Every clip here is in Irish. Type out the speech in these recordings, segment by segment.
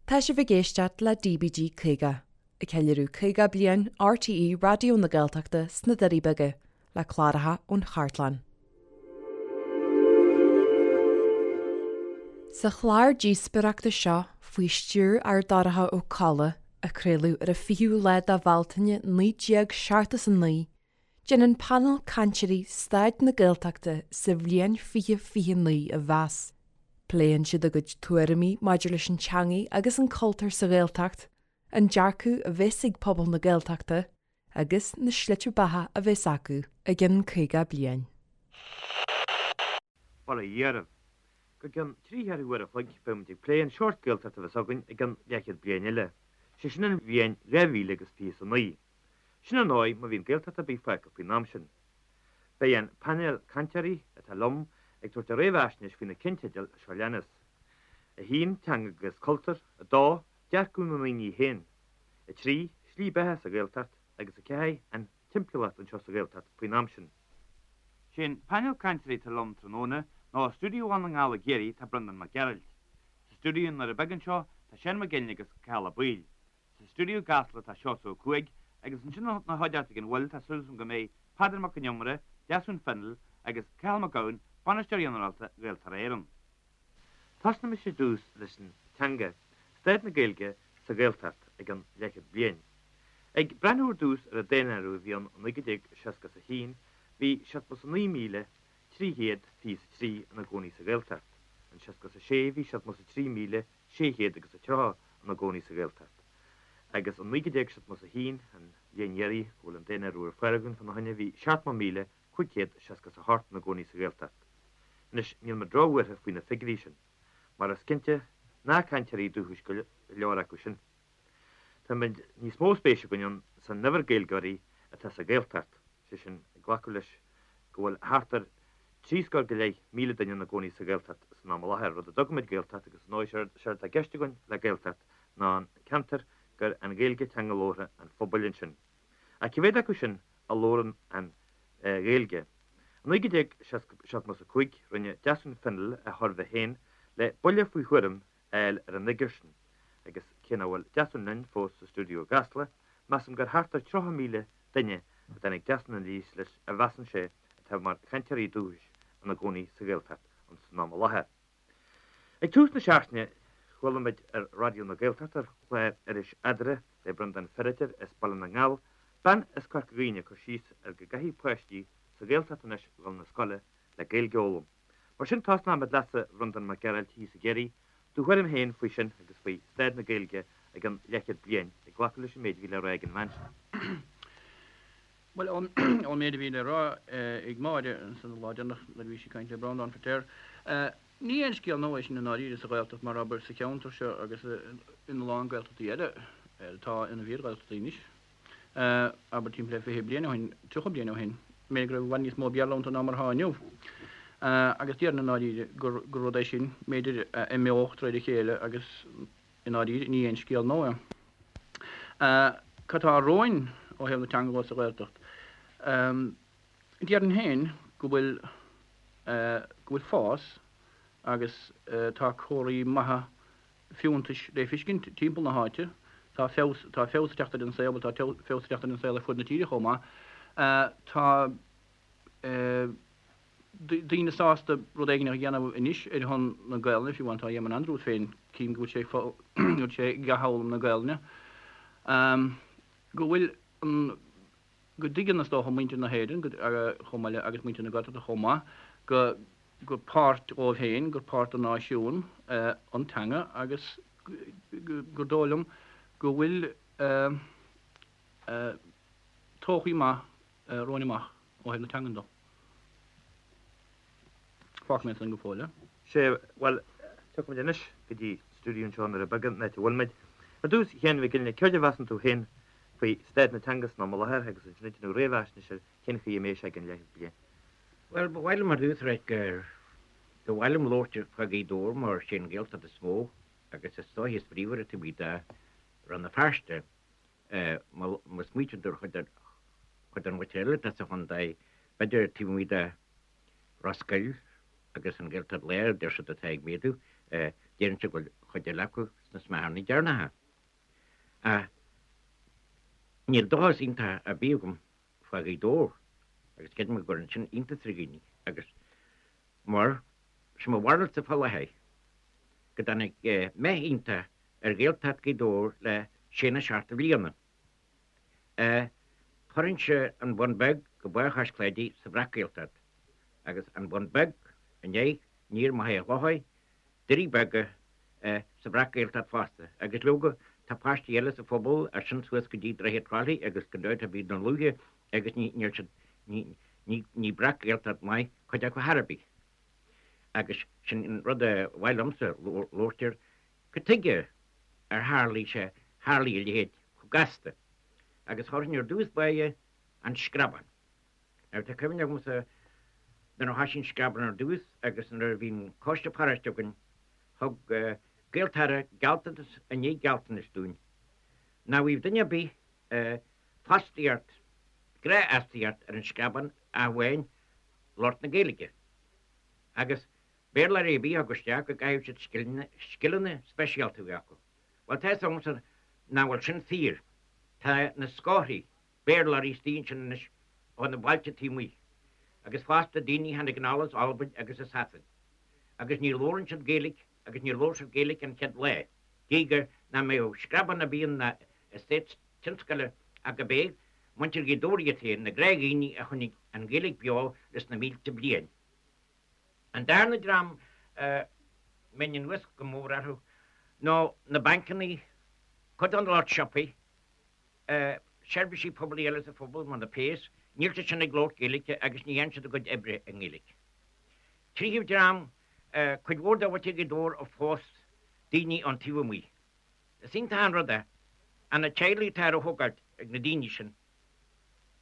Tá sibh ag éisteacht le DBG 50, ag ceiliúradh 50 bliain RTÉ Raidió na Gaeltachta sna Doirí Beaga, le cláracha ón chartlann. Sa chlár díospóireachta seo, faoi stiúir Fheardorcha Ó Colla, a craoladh ar an 20ú lá de Bhealtaine 1979, déanann painéal cainteoirí staid na Gaeltachta sa bhliain 2029 a mheas. Pléann siad a gcuid tuairimí maidir leis an teangaidh agus an cultúr sa Ghaeltacht, an dearcadh a bheas ag pobal na Gaeltachta agus na slite beatha a bheas acu i gcionn 50 bliain. Bail ó Dhia oraibh. Go gcionn trí cheathrú uair a chloig beidh muid ag plé an seort Gaeltacht a bheas againn i gcionn leathchéad bliain eile, sé sin an bhliain 2029. Sin ar ndóigh má bhíonn Gaeltacht ar bith fágtha faoin am sin. Beidh an painéal cainteoirí atá liom ag tabhairt a réamhaisnéis faoi na cinnteidil seo leanas, 1, Teanga agus Cultúr, 2, Dearcadh na ndaoine féin, 3, Slí beatha sa Ghaeltacht agus 4, An timpeallacht anseo sa Ghaeltacht faoin am sin. Sé an painéal cainteoirí atá liom tráthnóna ná i stiúideo Bhaile na nGall i gCiarraí tá Breandán Mac Gearailt. Sa stiúideo i nDoire Beaga anseo tá Seán Mac Fhionnghaile agus Cathal Ó Baoill. Sa stiúideo i gCasla tá Seosamh Ó Cuaig agus ansin ina chuideachta ag an bhfuil tá súil agam go mbeidh Peadar Mac Con Iomaire, Deasún Fennell agus Cathal Mac Gabhann, Bainisteoir Ginearálta Ghaeltarra Éireann. Tosnaimis ar dtús leis an teanga, staid na Gaeilge sa Ghaeltacht i gcionn leathchéad bliain. Ag breathnú ar dtús ar an daonáireamh a bhí ann i 1961 bhí 79,323 ina gcónaí sa Ghaeltacht, in 66 bhí 73,000 630 ina gcónaí sa Ghaeltacht, agus in 1971, an bhliain dheiridh go bhfuil an daonáireamh ar fáil againn fána choinne, bhí 70,568 ina gcónaí sa Ghaeltacht. Anois, níl mé róbhuartha faoi na figiúirí sin, mar is cinnte nach cainteoirí dúchais go leor acu sin. Tá níos mó spéis againn ann san uimhir Gaeilgeoirí atá sa Ghaeltacht, sé sin, ag glacadh leis go bhfuil thart ar 73,000 duine ina gcónaí sa Ghaeltacht san am i láthair, rud a dtugaimid Gaeltacht agus ar ndóigh séard atá i gceist againn le Gaeltacht ná an ceantar gur an Ghaeilge teanga labhartha an phobail ansin. Ach cé mhéad acu sin a labhrann an Ghaeilge? I 1975 rinne Deasún Fennell a shuirbhé féin le buille faoi thuairim a fháil ar an fhigiúr sin agus cé nach bhfuil Deasún linn fós sa stiúideo i gCasla, measaim gur thart ar 30,000 duine a dtáinig Deasún aníos leis a mheasann sé atá mar chainteoirí dúchais ina gcónaí sa Ghaeltacht san am i láthair. Ag tús na seachtaine chuala muid ar Raidió na Gaeltachta ar chlár Iris Eadra le Breandán Feiritéar as Baile na nGall, bean as Corca Dhuibhne ag cur síos ar go gcaithfidh páistí sa Ghaeltacht anois dhul 'na scoile le Gaeilge a fhoghlaim. Mar sin tosnóimid leatsa a Bhreandáin Mac Gearailt thíos i gCiarraí, do thuairim féin faoi sin agus faoi staid na Gaeilge i gcionn leathchéad bliain, ag glacadh leis an méid a bhí le rá ag an bhean sin. Bhuel, ón méid a bhí le rá ag Máire ansan an lá deireanach nuair a bhí sí ag caint le Breandán Feiritéar, ní aon scéal nua é sin i ndáiríre sa Ghaeltacht mar abair sa cheantar seo agus ina lán Gaeltachtaí eile atá ina bhfíor-Ghaeltachtaí anois. abair timpeall le 20 bliain ó shin, 30 bliain ó shin, b'fhéidir go raibh i bhfad níos mó Béarla iontu ná mar atá inniu. Agus déarfainn i ndáiríre gur rud é sin, b'fhéidir, a imeodh de réir a chéile agus i ndáiríre ní aon scéal nua é. Cad tá romhainn ó thaobh na teanga de sa Ghaeltacht? Déarfainn féin go bhfuil, go bhfuil fás agus tá comharthaí maithe fiúntais le feiscint timpeall na háite. Tá feabhas, tá feabhas ag teacht ar an saol, bhuel tá feabhas ag teacht ar an saol ar fud na tíre chomh maith. Tá daoine sásta rud éigin a dhéanamh anois ar shon na Gaelainne, fiú amháin tá Éamonn Andrews féin, cím go bhfuil sé, go bhfuil sé ag athfhoghlaim na Gaelainne. Go bhfuil an, go dtuigeann is dócha muintir na hÉireann chomh maith le agus muintir na Gaeltachta chomh maith go gur páirt dhóibh féin, gur páirt den náisiún an teanga agus gur dóigh liom go bhfuil todhchaí maith romhainn amach ó thaobh na teangan de. Fágfaidh mé ansan go fóill é. Sea, bhuel, tiocfaimid anois go dtí stiúideo anseo i nDoire Beaga, an áit a bhfuilimid. Ar dtús, a Sheáin Mhic Fhionnghaile, céard a mheasann tú féin faoi staid na teanga san am i láthair agus ansin ag déanamh réamhaisnéis ar cén chaoi a mbeidh sé i gcionn leathchéad bliain? Bhuel, ba mhaith liom ar dtús a ráit gur ba mhaith liom labhairt fá Ghaoth Dobhair mar sé an Ghaeltacht is mó agus is dóiche is bríomhaire taobh amuigh de Rann na Feirste. Má smaoitíonn tú ar chuid den mhuintir eile atá sa chontae, b'fhéidir taobh amuigh de Ros Goill agus an Ghaeltacht Láir, deir siad atá ag méadú. Déarfainnse go bhfuil chuid eile acu sna smeacharnaí deireanacha. Ach níl dóchas iontach ar bith agam fá Ghaoth Dobhair agus creidim go gcuireann sin iontas ar dhaoine agus mar sé mo bharúilsa fá láthair go dtáinig meath iontach ar Ghaeltacht Ghaoth Dobhair le sé nó seacht de bhliana. Chuirfinnse an Bun Beag go Barr Chois Cláidí sa Bhreac-Ghaeltacht agus an Bun Beag i ndiaidh aniar Machaire Chlochair, Doirí Beaga sa Bhreac-Ghaeltacht fosta agus leoga tá paistí eile sa phobal as sin suas go dtí Droichead Trá Lí agus gan dabht tá bíd na luaithe agus ní níl siad ní ní ní Breac-Ghaeltacht maith cuid acu chor ar bith. Agus sin an rud a mhaith liomsa labhairt air Cad tuige ar tharlaigh sé, tharlaigh a leithéid chomh gasta? Agus chuirfinn ar dtús báire an Screabán. Now tá cuimhne agamsa nuair a thoisigh an Screabán ar dtús agus nuair a bhí an coiste paróiste againn, thug Gaeltarra gealltanas i ndiaidh gealltanais dúinn nach bhfaigheadh duine ar bith fostaíocht, gnáthfhostaíocht ar an Screabán ach amháin lucht na Gaeilge. Agus Béarlóirí ar bith a thug isteach go gcaithfeadh siad scileanna speisialta a bheith acu. Bhuel, tá fhios agamsa nach bhfuil sin fíor. Tá na scórthaí Béarlóirí istigh ansin anois ó na bailte taobh amuigh, agus fosta daoine a tháinig anall as Albain agus as Sasain, agus ní labhrann siad Gaeilge agus níor labhair siad Gaeilge an chéad lá, gidh gur nach mbeadh screabán ar bith ann ná eastát tionscail ach go b'é muintir Ghaoth Dobhair iad féin, na gnáthdhaoine a choinnigh an Ghaeilge beo leis na mílte bliain. An darna dream a mbeinn anuas go mór orthu ná na bancannaí, cuid den lucht siopaí, seirbhísí poiblí eile sa phobal mar na péas, níl siad sin ag labhairt Gaeilge agus ní dhéanann siad a gcuid oibre i nGaeilge. Tríú dream, cuid mhór de mhuintir Ghaoth Dobhair a phós daoine ón taobh amuigh. Is iontach an rud é, ach na teaghlaigh atá á thógáilt ag na daoine sin,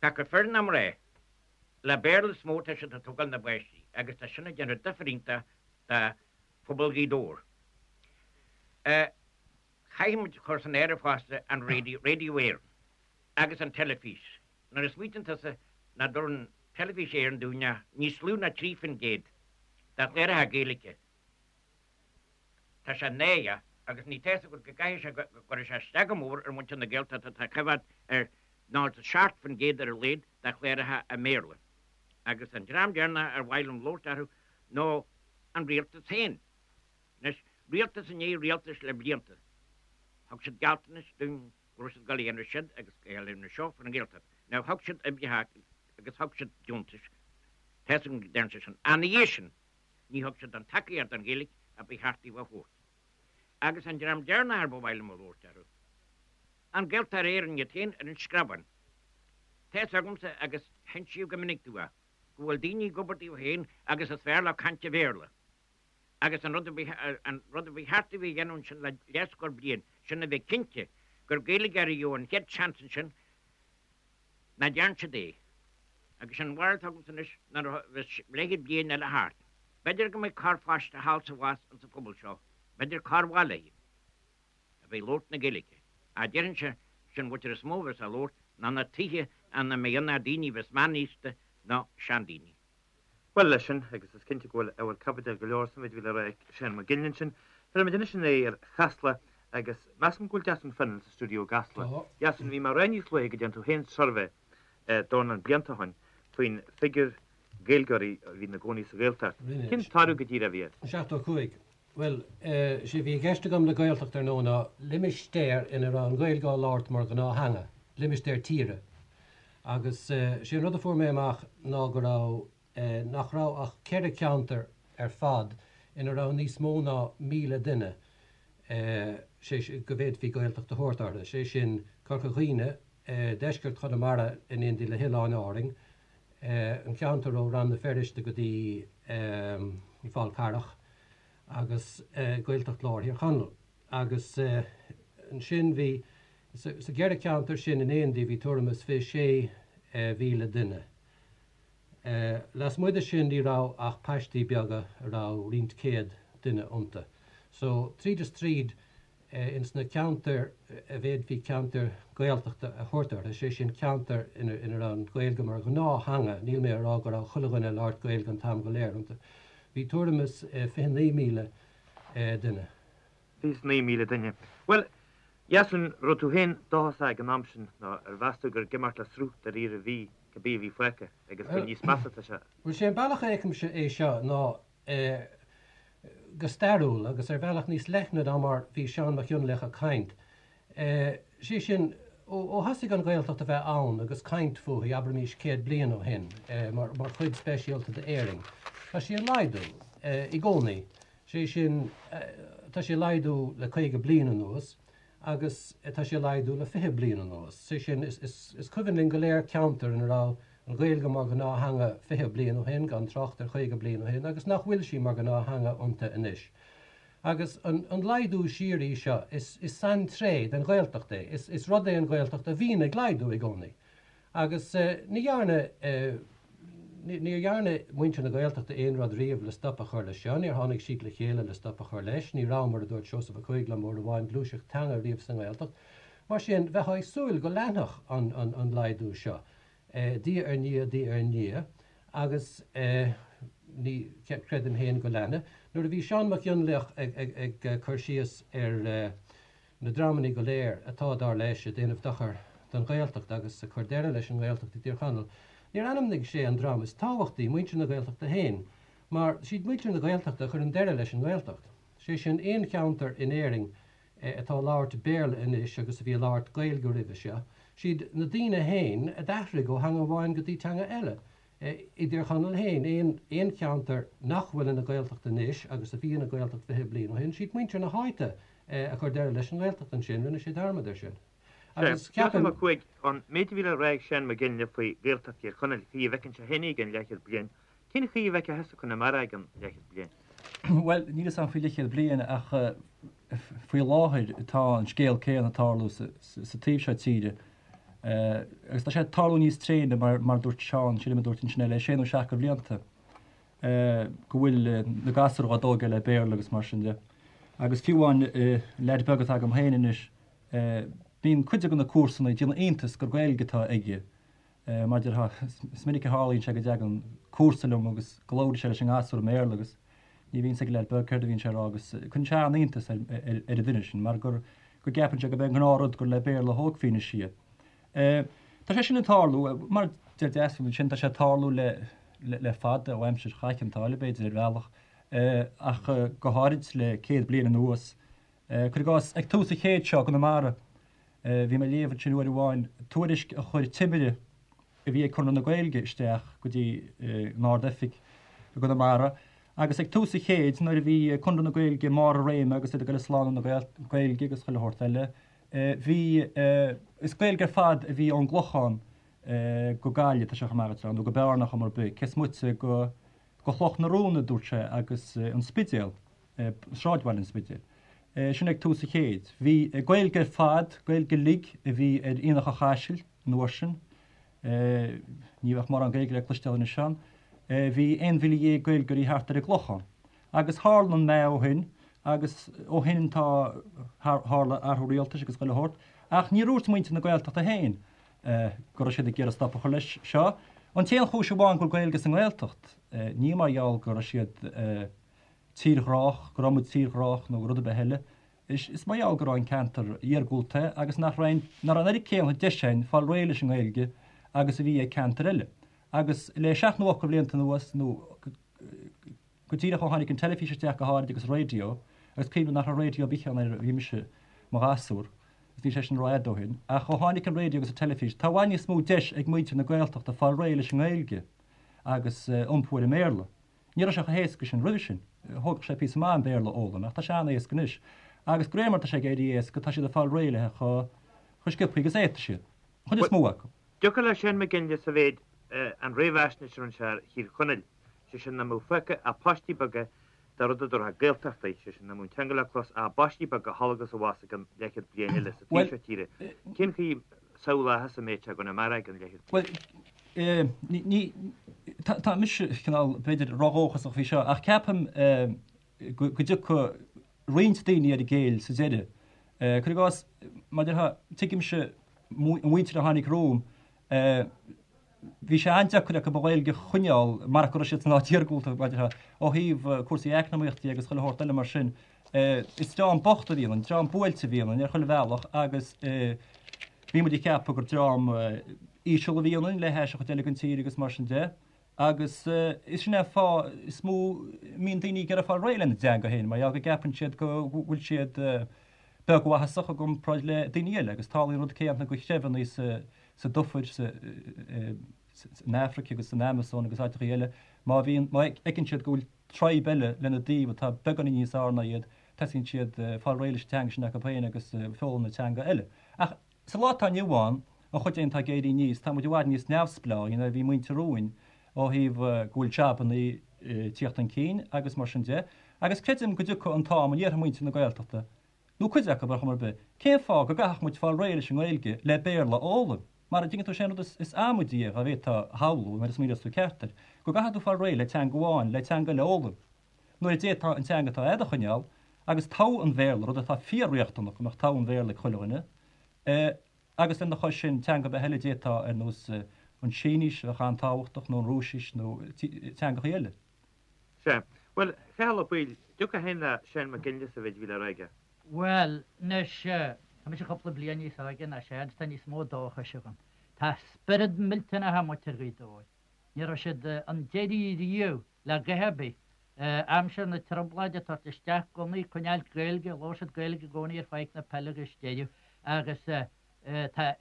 pé acu fir ná mná, Le Béarla is mó atá siad ag tógáil na bpáistí agus tá sin ag déanamh difear iontach do phobal Ghaoth Dobhair. Caithfidh muid cur san áireamh fosta an raidió, Radio Éireann, agus an teilifís. Nuair a smaoitíonn tusa nach dtabharann Teilifís Éireann dúinn ach níos lú ná 3% de chláracha Gaeilge, Tá sé náireach agus ní tá fhios agat go gcaithfidh sé go gcuirfidh sé isteach go mór ar mhuintir na Gaeltachta atá ag coimhéad ar 97% ar a laghad de chláracha i mBéarla. Agus an dream deireanach ar mhaith liom labhairt orthu ná an rialtas féin. Anois, rialtas i ndiaidh rialtais le blianta, thug siad gealltanais dúinn go raibh siad ag dul a dhéanamh siod agus ag dul a dhéanamh seo faoin nGaeltacht. Now, thug siad oibreacha agus thug siad deontais, tá fhios agam go ndearna siad sin. Ach ina dhiaidh sin, Ní thug siad an tacaíocht don Ghaeilge a ba cheart dóibh a thabhairt. Agus an dream deireanach ar ba mhaith liom a labhairt orthu, an Gaeltarra Éireann iad féin ar an Screabán. Tá fhios agamsa, agus hinsíodh go minic domh é, go bhfuil daoine ag obair dóibh féin agus is fearr leo caint i Bhéarla. Agus an rud a ba an rud a ba cheart dóibh a dhéanamh ansin le leathscór bliain, sin a bheith cinnte gur Gaeilgeoirí a gheobhadh an chéad seans ansin, Nach dtearn siad é. Agus sin an bharúil atá agamsa anois nuair a bheas leathchéad bliain eile thart, b'fhéidir go mbeidh corrpháiste thall 's abhus insa phobal seo, b'fhéidir corrbhaile, a bheidh ag labhairt na Gaeilge. Ach déarfainnse, sin an mhuintir is mó a bheas á labhairt ná na tithe ina mbeidh ann ach daoine a bheas meánaosta nó seandaoine. Bhuel, leis sin, agus is cinnte go bhfuil ábhar caibidil go leor sa mhéid a bhí le rá ag Seán Mac Ginlí ansin, fillfimid anois inár n-aghaidh ar Chasla agus measaim go bhfuil Deasún Fennell sa stiúideo i gCasla. Tá. Deasún, bhí mé ag rá níos luaithe go dtearn tú féin suirbhé dornán blianta ó shin faoin figiúr Gaeilgeoirí a bhí ina gcónaí sa Ghaeltacht. Rinne. Cén toradh go díreach a bhí air? 75. Bhuel, sé a bhí i gceist agam le Gaeltacht ar ndóigh ná limistéar ina raibh an Ghaeilge á labhairt mar ghnáth-theanga, limistéar tíre. Agus sé an rud a fuair mé amach ná go raibh, nach raibh ach 4 ceantar ar fad ina raibh níos mó ná 1,000 duine, sé sin, go bhféadfaí Gaeltacht a thabhairt orthu, sé sin, Corca Dhuibhne, deisceart Chonamara in éindí le hOileáin Árainn, an ceantar ó Rann na Feirste go dtí an Fál Carrach, agus Gaeltacht Lár Thír Chonaill. Agus ansin bhí. Sa gceithre ceantar sin in éindí bhí tuairim is 26,000 duine. Lasmuigh de sin ní raibh ach paistí beaga a raibh roinnt céad duine iontu. So, tríd is tríd, ins na ceantair a bhféadfaí ceantair Gaeltachta a thabhairt orthu, sé sin ceantair ina raibh an Ghaeilge mar ghnáth-theanga, níl mé a rá go raibh chuile dhuine ag labhairt Gaeilge an t-am go léir iontu, bhí tuairim is 29,000 duine. 29,000 duine. Bhuel, Dheasún, raibh tú féin dóchasach ag an am sin nó ar mheas tú gur ag imeacht le sruth dáiríre a bhí cibé a bhí fágtha agus gur níos measa atá sé? Bhuel, sé an bealach a fheicimse é seo ná go stairiúil agus ar bhealach níos leithne ná mar bhí Seán Mac Fhionnlaoich ag caint. Sé sin, ó thosaigh an Ghaeltacht a bheith ann agus caint fúithi, abraimís 100 bliain ó shin, mar chuid speisialta d'Éirinn, tá sí ag laghdú i gcónaí. Sé sin, tá sí ag laghdú le 50 bliain anuas agus tá sí ag laghdú le 20 bliain anuas. Sé sin, is cuimhin linn go léir ceantar ina raibh an Ghaeilge mar ghnáth-theanga 20 bliain ó shin, gan trácht ar 50 bliain ó shin, agus nach bhfuil sí mar ghnáth-theanga iontu anois. Agus an laghdú síoraí seo, is saintréith den Ghaeltacht é. Is rud é an Ghaeltacht a bhíonn ag laghdú i gcónaí. Agus ní dhearna, níor dhearna muintir na Gaeltachta aon rud riamh le stop a chur leis seo, níor tháinig siad le chéile le stop a chur leis, ní raibh, mar a dúirt Seosamh Ó Cuaig liom uair amháin, gluaiseacht teanga riamh sa nGaeltacht. Mar sin, bheifeá ag súil go leanfadh an laghdú seo, diaidh ar ndiaidh, diaidh ar ndiaidh, agus ní chreidim féin go leanfaidh. Nuair a bhí Seán Mac Fhionnlaoich ag cur síos ar. na dreamanna go léir atá, dar leis, ag déanamh dochar don Ghaeltacht agus ag cur deireadh leis an nGaeltacht i dTír Chonaill. Níor ainmnigh sé an dream is tábhachtaí, muintir na Gaeltachta féin, mar siad muintir na Gaeltachta a chuireann deireadh leis an nGaeltacht. Sé sin, aon cheantar in Éirinn atá ag labhairt Béarla anois agus a bhí ag labhairt Gaeilge roimhe seo, siad na daoine féin a d'athraigh ó theanga amháin go dtí teanga eile. I dTír Chonaill féin, aon cheantar nach bhfuil ina Ghaeltacht anois agus a bhí ina Ghaeltacht 20 bliain ó shin, siad muintir na háite a chuir deireadh leis an nGaeltacht ansin, rinne sé dearmad air sin. Agus ceapaim. Seosamh Ó Cuaig, an méid a bhí le rá ag Seán Mac Fhionnghaile faoi Ghaeltacht Thír Chonaill, chaoi a bhfeiceann sé féin í i gceann leathchéad bliain, cén chaoi a bhfeicfeá thusa Conamara i gceann leathchéad bliain? Bhuel, níl 'fhios a'm faoi leathchéad bliain ach faoi láthair tá an scéal céanna ag tarlú sa taobh seo tíre. Agus tá sé ag tarlú níos tréine mar mar dúirt Seán, sílim a dúirt ansin le sé nó seacht de bhlianta. go bhfuil na gasúir á dtógáil le Béarla agus mar sin de. Agus fiú amháin leaid beag atá agam féin anois, bíonn cuid de na comharsana ag déanamh iontais gur Gaeilge atá aige. Mar déarfá, is minic a tharlaíonn sé go dtagann comharsa liom agus go labhraíonn sé leis an ngasúr i mBéarla agus ní bhíonn 'fhios ag an leaid beag céard a bhíonn sé a rá agus cuireann sé an-iontas ar an duine sin mar gur go gceapann sé gurb é an gnáthrud gur le Béarla a thógfaí anois iad. Tá sé sin ag tarlú, mar a deir Deasún ansin, tá sé ag tarlú le fada, ó aimsir Chath Chionn tSáile b'fhéidir ar bhealach, ach go háirid le 100 bliain anuas. Cuir i gcás, ag tús an chéid seo i gConamara, bhí mé ag léamh ansin uair amháin tuairisc a chuir timire a bhí ag Conradh na Gaeilge isteach go dtí an Ard-Oifig i gConamara agus ag tús an chéid nuair a bhí Conradh na Gaeilge i mbarr a réime agus iad ag dul ag slánú na Gaeilge agus chuile shórt eile, Bhí, is Gaeilge ar fad a bhí ón gClochán go Gaillimh, tá sé chomh maith nó go Bearna chuma ar bith, cé is moite go Chloch na Rón a dúirt sé agus an Spidéal, sráidbhaile an Spidéil. Sin ag tús an chéid. Bhí Gaeilge ar fad, Gaeilge uilig a bhí ar Aonach an Chaisil an uair sin. Ní bheadh mórán Gaeilge le cloisteáil anois ann. Bhí 11,000 Gaeilgeoirí thart ar an gClochán. Agus tharla an meath ó shin, agus ó shin tá, tharla athrú rialtais agus chuile shórt, ach níor dhúirt muintir na Gaeltachta féin go raibh siad ag iarraidh stop a chur leis seo. An t-aon chúis amháin go bhfuil Gaeilge sa nGaeltacht, ní mar gheall go raibh siad tírghrách, go raibh muid tírghrách nó rud ar bith eile, is mar gheall go raibh an ceantar iargúlta agus nach raibh, nach raibh an oiread céanna deis againn fáil réidh leis an nGaeilge agus a bhí ag ceantair eile. Agus le seacht nó ocht de bhlianta anuas, nó Go díreach ó tháinig an teilifís isteach go háirid agus raidió, agus cuimhním nach raibh raidió ar bith ann nuair a bhí mise mo ghasúr, agus níl sé sin rófhada ó shin, ach ó tháinig an raidió agus an teilifís, tá i bhfad níos mó deis ag muintir na Gaeltachta fáil réidh leis an nGaeilge agus iompú ar an mBéarla. Ní raibh sé chomh héasca sin roimhe sin. Thógfadh sé píosa maith an Béarla a fhoghlaim, ach tá sé an-éasca anois. Agus de réir mar atá sé ag éirí éasca, tá siad ag fáil réidh léi chomh sciobtha agus a fhéadfaidh siad, an chuid is mó acu. Dtiocfadh le Seán Mac Fhionnghaile sa mhéid an réamhaisnéis a rinne sé ar Thír Chonaill, sé sin nach mbeadh fágtha ach paistí beaga de rud a dtabharfá Gaeltachtaí, sé sin nach mbeadh an teanga le clos ach i bpaistí beaga thall agus abhus i gceann leathchéad bliain eile sa taobh seo tíre. Cén chaoi a samhlófá thusa an méid seo i gConamara i gceann leathchéad bliain? Bhuel, ní, tá mise cineál, b'fhéidir, ródhóchasach faoi seo, ach ceapaim go dtiocfaidh roinnt daoine ar a gcéill sa deireadh. Cuir i gcás, mar a déarfá, tuigimse an mhuintir a tháinig romham, bhí sé an-deacair acu an Ghaeilge a choinneáil marach go raibh siad san áit iargúlta, mar a déarfá, ó thaobh cúrsaí eacnamaíochta agus chuile shórt eile mar sin. Is dream bocht a bhí ionainn, dream buailte a bhí ionainn ar chuile bhealach agus bhí muid ag ceapadh gur dream íseal a bhí ionainn le hais an chuid eile den tír agus mar sin de. Agus is sin é an fáth is mó a mbíonn daoine ag iarraidh fáil réidh lena dteanga féin, mar gheall go gceapann siad go bhfuil siad beagmhaitheasach i gcomparáid le daoine eile. Agus tarlaíonn an rud céanna do threibheanna sa dufair, san Afraic agus san Amasóin agus áiteachaí eile, má bhíonn, má fheiceann siad go bhfuil tribe eile lena dtaobh atá beagáinín níos fhearr ná iad, tosaíonn siad fáil réidh leis an teanga sin acu féin agus foghlaim na teanga eile. Ach sa lá atá inniu ann, an chuid againn atá ag éirí aníos, tá muid i bhfad níos neamhspleáí ná a bhí muintir romhainn ó thaobh go bhfuil jabannaí ag tíocht chun cinn agus mar sin de. Agus creidim go dtiocfaidh an t-am a ndéarfaidh muintir na Gaeltachta, nó cuid acu ar chuma ar bith, cén fáth go gcaithfeadh muid fáil réidh leis an nGaeilge le Béarla a fhoghlaim? Mar a dtuigeann tú, sé an rud is amaidí é, dá bhféadfá a shamhlú, nuair a smaoineos tú ceart air, go gcaithfidh tú fáil réidh le teanga amháin le teanga eile a fhoghlaim, nuair a d'fhéadfá an teanga atá agat a choinneáil agus togha an Bhéarla, rud atá fíor-riachtanach go mbeadh togha an Bhéarla ag chuile dhuine, agus lena chois sin, teanga ar bith eile a d'fhéadfá, ar nós an tSínis, a bheadh an-tábhachtach, nó an Rúisis, nó teangachaí eile. Sea. Bhuel, a Chathail Ó Baoill, dtiocfá féin le Seán Mac Fhionnghaile sa mhéid a bhí le rá aige? Bhuel, anois, tá mise cúpla bliain níos óige ná Seán, tá níos mó dóchais agam. Tá spiorad millteanach ag muintir Ghaoth Dobhair. Ní raibh siad chun deiridh riamh le a dhath ar bith. Aimsir na Trioblóide, tabhairt isteach gunnaí, coinneáilt Gaeilge, labhair siad Gaeilge i gcónaí ar Pháirc na Peile agus deireadh. Agus tá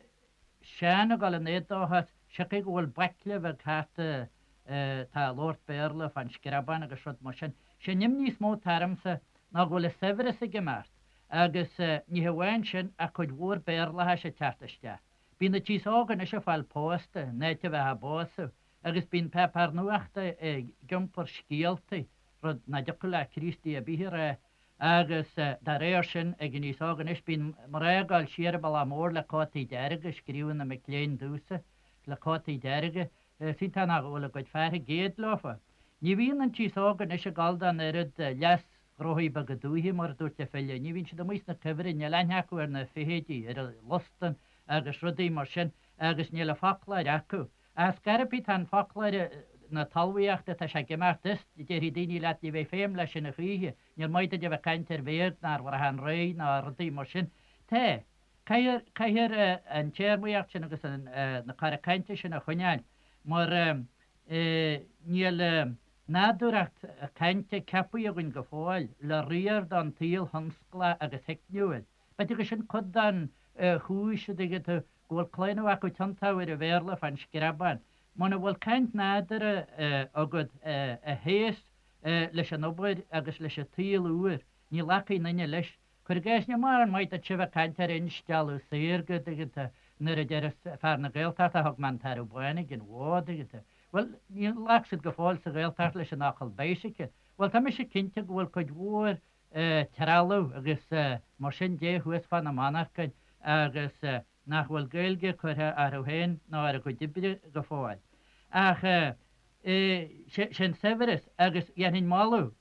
Seán ag dul in éadóchas, siocair go bhfuil baicle bheag thart atá ag labhairt Béarla fán screabán agus rud mar sin. Sé an imní is mó atá ormsa ná go bhfuil an saibhreas ag imeacht agus ní hamháin sin ach cuid mhór Béarlachais ag teacht isteach. Bíonn an t-aos óg anois ag fáil pósta in áit a bheith á bpósadh agus bíonn páipéar nuachta ag iompar scéaltaí, rud nach dtiocfadh le Críostaí ar bith a rá Agus dá réir sin, ag an aos óg anois, bíonn mná ag dul siar an bealach mór le cótaí dearga, scríobhann na mic léinn domhsa, le cótaí dearga, is iontach nach bhfuil a gcuid fear ag éad leofa. Ní bhíonn an t-aos óg anois ag dul don oiread leas-ghnóthaí beaga dúiche, mar a dúirt an file, ní bhíonn siad amuigh sna cuibhrinn, níl aithne acu ar na feithidí, ar an lustan agus rudaí mar sin, agus níl an foclóir acu. Ach scairpí tá an foclóir na talmhaíochta, tá sé ag imeacht is, déarfaidh daoine leat, ní bheidh feidhm leis sin a choíche, níor mhaith duit a bheith ag caint ar bhéag ná ar bhrachán réidh ná rudaí mar sin. Tá. Caithfear, caithfear an téarmaíocht sin agus an, na cora cainte sin a choinneáil mar níl nádúracht cainte ceapaithe againn go fóill le riar don tsaol thionsclach agus theicniúil. B'fhéidir gur sin cuid den chúis, a dtuigeann tú, go bhfuil claonadh acu tiontú ar an Bhéarla fán screabán. Muna bhfuil caint nádúrtha agat a théas leis an obair agus leis an tsaol úr, ní ghlacfaidh aon duine leis. Cuir i gcás, níl mórán maith duit a bheith ag caint ar instealladh saorga, a dtuigeann tú, nuair a deir fear na Gaeltachta thug mé an tarbh bán ag an bhó, a dtuigeann tú. Bhuel, níor ghlac siad go fóill sa Ghaeltacht leis an fhocal bicycle. Bhuel, tá mise cinnte go bhfuil cuid mhór trealamh agus mar sin de thuas fá na monarchain agus nach bhfuil Gaeilge curtha orthu féin ná ar a gcuid oibre go fóill. Ach sé an saibhreas agus dhéanfainn moladh,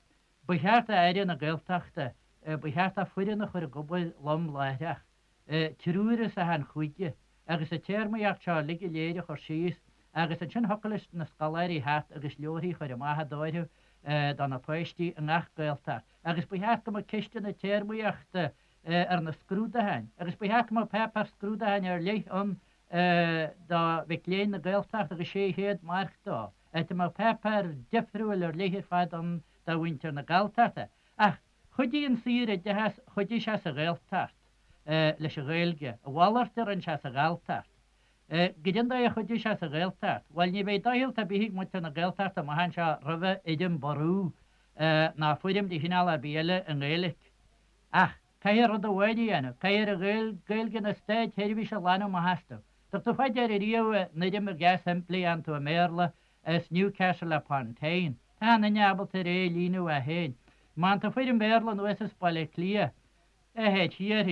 ba cheart d'Aire na Gaeltachta, ba cheart dó foireann a chur ag obair lom láithreach. triúr as achan chúige, agus an téarmaíocht seo uilig go léir a chur síos, agus ansin thiocfadh leis na scoláirí theacht agus leabharthaí a chur amach dóibh do na páistí i ngach Gaeltacht. Agus ba cheart go mbeadh ceisteanna téarmaíochta ar na scrúducháin, agus ba cheart go mbeadh páipéar scrúducháin ar leith ann do mhic léinn na Gaeltachta agus 600 marc dó, áit a mbeadh páipéar difriúil ar leith ar fad ann do mhuintir na Galltachta. Ach Chuidigh an saoroideachas, chuidigh sé sa Ghaeltacht leis an Ghaeilge. A mhalairt a rinne sé sa Ghalltacht. Goidé an dóigh a chuidigh sé sa Ghaeltacht? Bhuel, ní bheidh doicheall ar bith ag muintir na Gaeltachta amach anseo roimhe fhoirm Brú ná foirm de chineál ar bith eile i nGaeilic. Ach caithfear rud amháin a dhéanamh, caithfear an Ghaeilge na státseirbhíse a ghlanadh amach astu. Dtug tú fá deara riamh an fhoirm dheas shimplí a fhaigheann tú i mBéarla as Newcastle upon Tyne. Tá achan duine ábalta ar é a líonadh é féin. Má fhaigheann tú foirm Bhéarla anuas as Baile Átha Cliath, a théid thiar,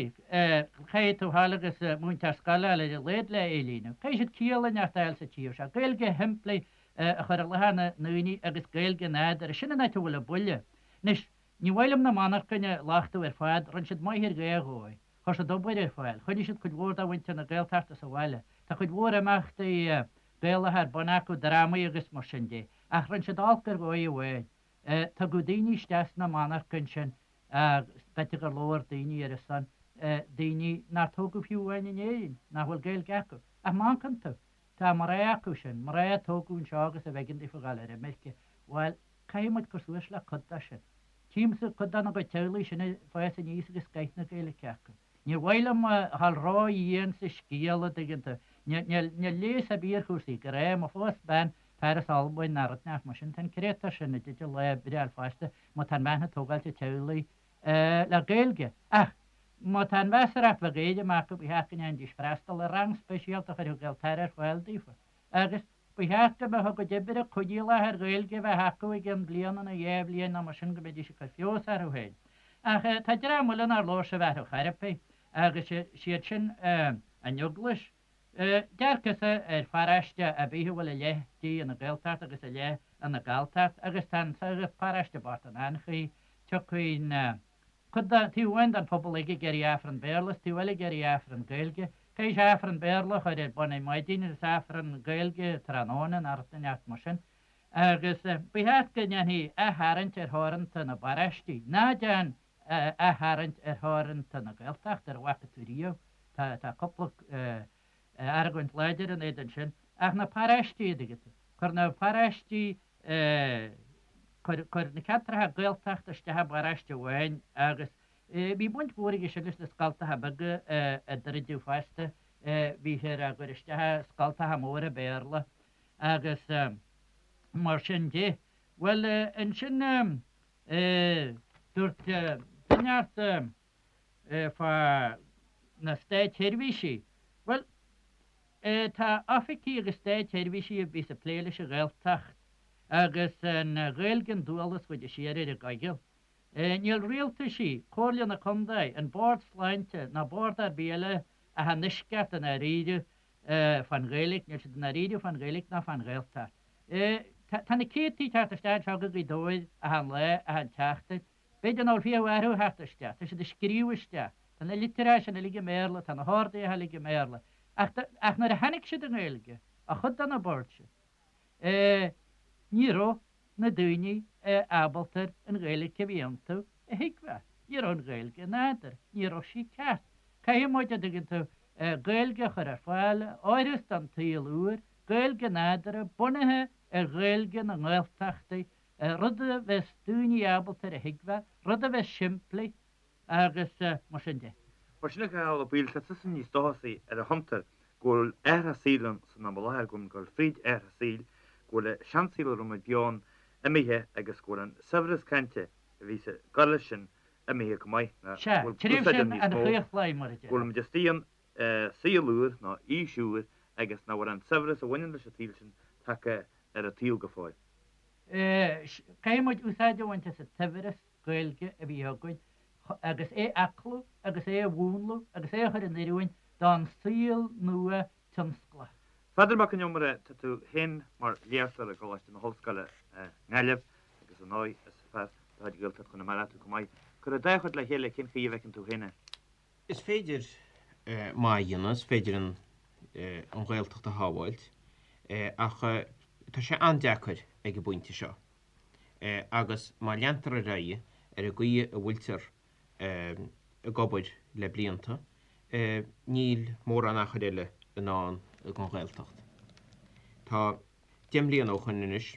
caithfidh tú fáil agus múinteoir scoile a fháil ar a laghad le é a líonadh. Caithfidh siad ciall inteacht a fháil sa tír seo. Gaeilge shimplí a chur i láthair na ndaoine agus Gaeilge nádúrtha. Sin an áit a bhfuil an buille. Anois, ní mhaith liom na monarchain a lochtú ar fad, rinne siad maith ar dhá dhóigh. Chuir siad obair ar fáil. Choinnigh siad cuid mhór de mhuintir na Gaeltachta sa bhaile. Tá cuid mhór imeachtaí Gaelacha ar bun acu, drámaí agus mar sin de. Ach rinne siad olc ar dhóigh amháin. Tugadh daoine isteach sna monarchain sin. B'fhéidir gur labhair daoine ar a son, daoine nár tógadh fiú amháin in Éirinn, nach bhfuil Gaeilge acu. Ach má amharcann tú, tá mná acu sin, mná a tógadh anseo agus arbh éigean daofa dhul ar imirce, bhuel, caithfidh muid cur suas le cuid de sin. Tchímse cuid dena gcuid teaghlaigh sin ag fás aníos agus scoith na Gaeilge acu. Níor mhaith liom a dhul ró-dhian sa scéal, a' dtuigeann tú. Níl leigheas ar bith ar chúrsaí, go raibh, má phós bean fear as Albain ná rud inteacht mar sin, tá an créatúr sin i dteideal lá breithe a fháil fosta má tá an bhean ag tógáilt an teaghlaigh le Gaeilge. Ach má tá an mheasarthacht bheag éirim acu, ba cheart go ndéanfaidís freastal ar rang speisialta a chuirfeadh Gaeltarra ar fáil daofa. Agus ba cheart go mbeadh a gcuid oibre coinníollach ar Ghaeilge a bheith acu i gcionn bliana nó dha bhliain nó mar sin go mbeidís ag cur feabhas orthu féin. Ach tá dream eile nár labhair sibh orthu chor ar bith agus siad sin an Eaglais. Dearcadhsa ar pharóiste ar bith a bhfuil a leath di ina Gaeltacht agus a leath ina Galltacht agus tá an paróiste bocht in anchaoi, tiocfaidh na. Cuid de, taobh amháin den phobal ag ag iarraidh Aifreann Béarla is taobh eile ag iarraidh Aifreann Gaeilge. Caithfidh sé Aifreann Béarla a chur ar bun ar maidin agus Aifreann Gaeilge tráthnóna nó rud inteacht mar sin. Agus ba cheart go ndéanfaí aththarraingt ar theoranta na bparóistí. Ná déan aththarraingt ar theoranta na Gaeltachta, ar a bhfaca tú riamh. Tá, tá cúpla argóint láidir in éadan sin. Ach na paróistí, a dtuigeann tú. Cuir na paróistí Cuir na ceantracha Gaeltachta isteach i bparóiste amháin agus bhí baint mhór aige sin leis na scoltacha beaga a druideadh fosta, bhíthear á gcur isteach i scoltacha móra Béarla agus mar sin de. Bhuel, ansin dúirt duine ort fá na státsheirbhísí, bhuel, Tá oifigí agus státsheirbhísí a bhíos ag plé leis an Ghaeltacht agus an Ghaeilge an dualgas chuid de shíor ar a gcoigeal. Níl rialtaisí, Comhairle na Condae, an Bord Sláinte ná bord ar bith eile ach i ndeisceart i ndáiríre fán Ghaeilge, níl siad i ndáiríre fán Ghaeilge ná fán Ghaeltacht. Tá na céadtaí ag teacht isteach anseo go Gaoth Dobhair achan lá, achan tseachtain. B'fhéidir nach bhfuil 20 orthu ag theacht isteach. Tá siad ag scríobh isteach. Tá na litreacha sin uilig i mBéarla, tá na horduithe uilig i mBéarla. Ach, ach nuair a tháinig siad i nGaeilge, ó chuid de na boird sin, eh, ní raibh na daoine ábalta an Ghaeilge a bhí iontu a thuigbheáil. Ní raibh an Ghaeilge nádúrtha. Ní raibh sí ceart. Caithfidh muid, a dtuigeann tú, Gaeilge a chur ar fáil, a oireas don tsaol úr, Gaeilge nádúrtha, bunaithe ar Ghaeilge na nGaeltachtaí, rud a bheas daoine ábalta ar a thuigbheáil, rud a bheas simplí agus mar sin de. Mar sin, a Chathail Ó Baoill, tá tusa níos dóchasaí ar an chuntar go bhfuil athrach saoil ann san am i láthair, go bhfuil muid ag dul fríd athrach saoil, go bhfuil an seansaol a raibh muid beo ann imithe agus go bhfuil an saibhreas cainte a bhí ag gabháil leis sin imithe go maith, ná Sea, go bhfuil tréimhse úsáid ann an níos mó, chlaochlaidh, mar a go bhfuil déarfá. muid istigh ann i saol úr nó aois úr agus nach bhfuil an saibhreas a bhaineann leis an tsaol sin tagtha ar an tsaol go fóill. Caithfidh muid úsáid a bhaint as an tsaibhreas Gaeilge a bhí againn agus é a aclú agus é a mhúnlú agus é a chur in oiriúint don saol nua tionsclach. Pheadar Mac an Iomaire, tá tú féin mar léachtóir i gColáiste na hOllscoile i nGaillimh agus ar ndóigh is fear de chuid Ghaeltacht Chonamara tú chomh maith. Cuir an dá chuid le chéile, cén chaoi a bhfeiceann tú féin é? Is féidir maith a dhéanamh, is féidir an Ghaeltacht a shábháilt ach tá sé an-deacair ag an bpointe seo agus má leantar ar aghaidh ar an gcaoi a bhfuiltear ag obair le blianta, níl mórán achair eile i ndán don Ghaeltacht. Tá 10 mbliana ó shoin anois,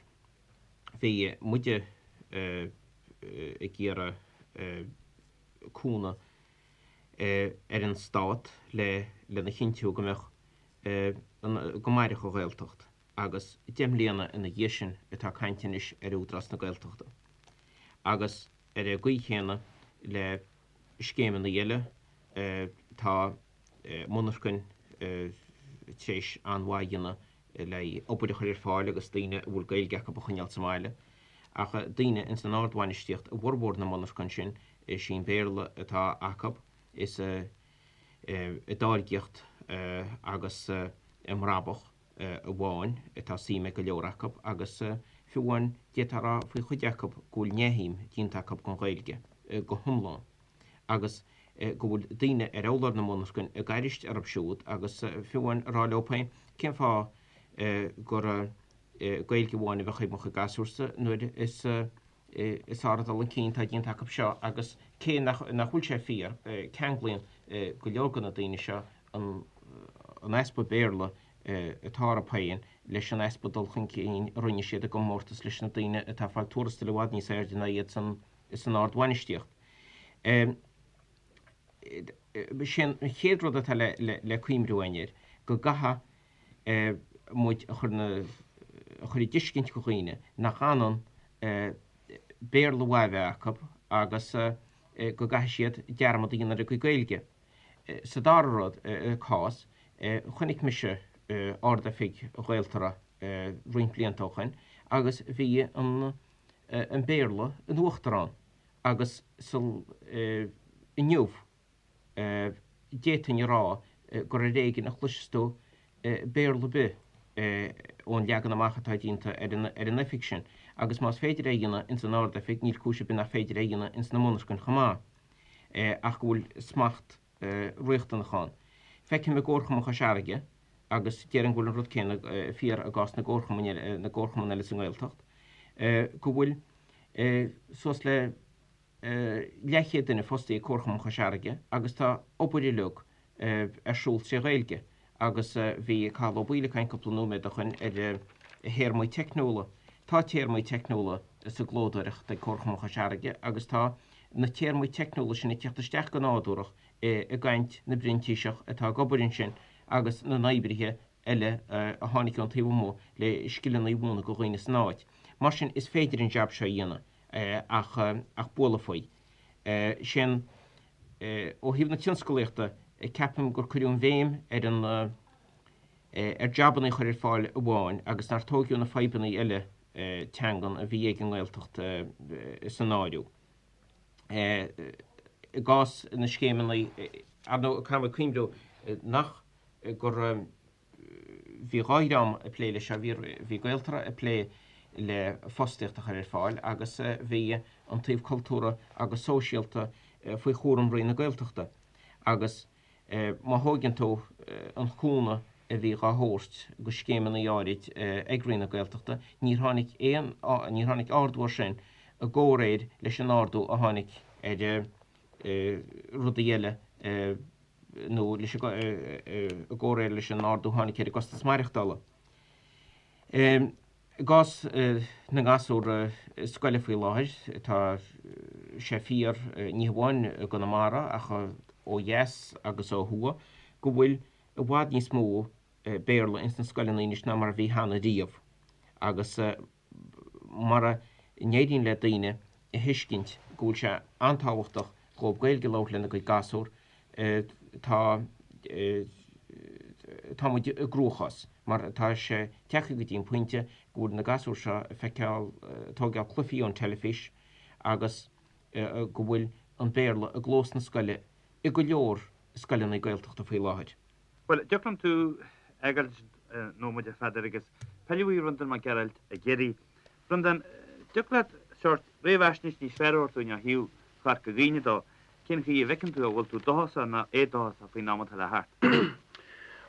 bhí muide ag iarraidh cúnamh ar an Stát le lena chinntiú go mbeadh go mairfeadh an Ghaeltacht agus 10 mbliana ina dhiaidh sin atá caint anois ar Údarás na Gaeltachta. Agus ar an gcaoi chéanna le scéimeanna eile tá monarchain tar éis an-mhaith a dhéanamh le obair a chur ar fáil agus daoine a bhfuil Gaeilge acu a choinneáil sa mbaile. Ach daoine ins an ardbhainistíocht i bhformhór na monarchan sin, is í an Béarla atá acu, is i dtáirgíocht agus i mbrabach amháin atá suim ag go leor acu agus fiú amháin d'fhéadfá a rá faoi chuid acu go bhfuil neamhshuim déanta acu den Ghaeilge go hiomlán agus go bhfuil daoine ar urlár na monarchan ag aithris orthu siúd agus fiú amháin ag rá leo féin cén fáth gur Gaeilge amháin a bheadh ag mo chuid gasúrsa nuair is. Is ard dul chun cinn atá déanta acu seo agus cé nach bhfuil sé fíor, ceanglaíonn go leor de na daoine seo an easpa Béarla atá orthu féin leis an easpa dul chun cinn a rinne siad i gcomórtas leis na daoine atá ag fáil tuarastail i bhfad níos airde ná iad san ardbhainistíocht. Sé an chéad rud atá le cuimhniú againn air go gcaithfidh muid a chur a chur i dtuiscint do dhaoine nach ionann Béarla mhaith a bheith acu agus go gcaithfidh siad dearmad a dhéanamh ar a gcuid Gaeilge. Sa dara rud, cás, chonaic mise Ard-Oifig Ghaeltarra roinnt blianta ó shoin agus bhí an Béarla in uachtar ann agus sa inniu d'fhéadfainn a rá gur ar éigean a chloiseas tú Béarla ar bith ón leagan amach atá déanta ar an oifig sin agus más féidir é a dhéanamh ins an Ard-Oifig níl cúis ar bith nach féidir é a dhéanamh ins na monarchain chomh maith ach go bhfuil smacht riachtanach ann. Feicim i gComharchumann Chois Fharraige, agus déarfainn go bhfuil an rud céanna fíor i gcás na gcomharchumann eile sa nGaeltacht, go bhfuil suas le leathchéad duine fostaithe ag Comharchumann Chois Fharraige agus tá obair uilig ar siúl tré Ghaeilge agus bhí Cathal Ó Baoill ag caint cúpla nóiméad ó shoin ar théarmaí teicniúla. Tá téarmaí teicniúla sa gclódóireacht ag Comharchumann Chois Fharraige agus tá na téarmaí teicniúla sin ag teacht isteach go nádúrach i gcaint na bprintíseach atá ag obair ansin agus na n-oibrithe eile a tháinig ón taobh amuigh le scileanna a mhúineadh do dhaoine san áit. Mar sin is féidir an jab seo a dhéanamh. ach ach bualadh faoi. Sin ó thaobh na tionscalaíochta, ceapaim gur cuireadh an bhéim ar an ar jabanna a chur ar fáil amháin agus nár tóigeadh na fadhbanna eile teangan a bhí ag an nGaeltacht san áireamh. I gcás na scéimeanna, ar ndóigh, caithfidh muid cuimhniú nach gur Bhí dhá dhream ag plé leis seo, bhí Gaeltarra ag plé le fostaíocht a chur ar fáil agus bhí an taobh cultúrtha agus sóisialta faoi chúram Roinn na Gaeltachta. Agus má thóigeann tú an cúnamh a bhí dhá thabhairt go scéimeanna áirid ag Roinn na Gaeltachta, níor tháinig aon, níor tháinig ardú air sin i gcomhréir leis an ardú a tháinig ar rudaí eile nó leis i gcomhréir leis an ardú a tháinig ar an gcostas maireachtála. I gcás na ngasúr scoile faoi láthair, tá sé fíor ní hamháin i gConamara ach ó dheas agus ó thuaidh go bhfuil i bhfad níos mó Béarla ins na scoileanna anois ná mar a bhí cheana riamh agus mara n-éiríonn le daoine a thuiscint go bhfuil sé an-tábhachtach dhóibh Gaeilge a labhairt lena gcuid gasúr, tá tá muid i gcruachás mar tá sé tagtha go dtí an pointe go bhfuil na gasúir seo ag feiceáil, tóigeáil cluichí ón teilifís agus go bhfuil an Béarla i gclós na scoile i go leor scoileanna Gaeltachta faoi láthair. Bhuel, dtiocfadh liom tú a fhágáil nóiméad a Pheadair agus pilleadh ar Bhreandán Mac Gearailt i gCiarraí. Breandán, dtiocfadh leat sórt réamhaisnéis níos fearr a thabhairt dúinn ó thaobh Chorca Dhuibhne dó, cén chaoi a bhfeiceann tú an bhfuil tú dóchasach nó éadóchasach faoin am atá le theacht?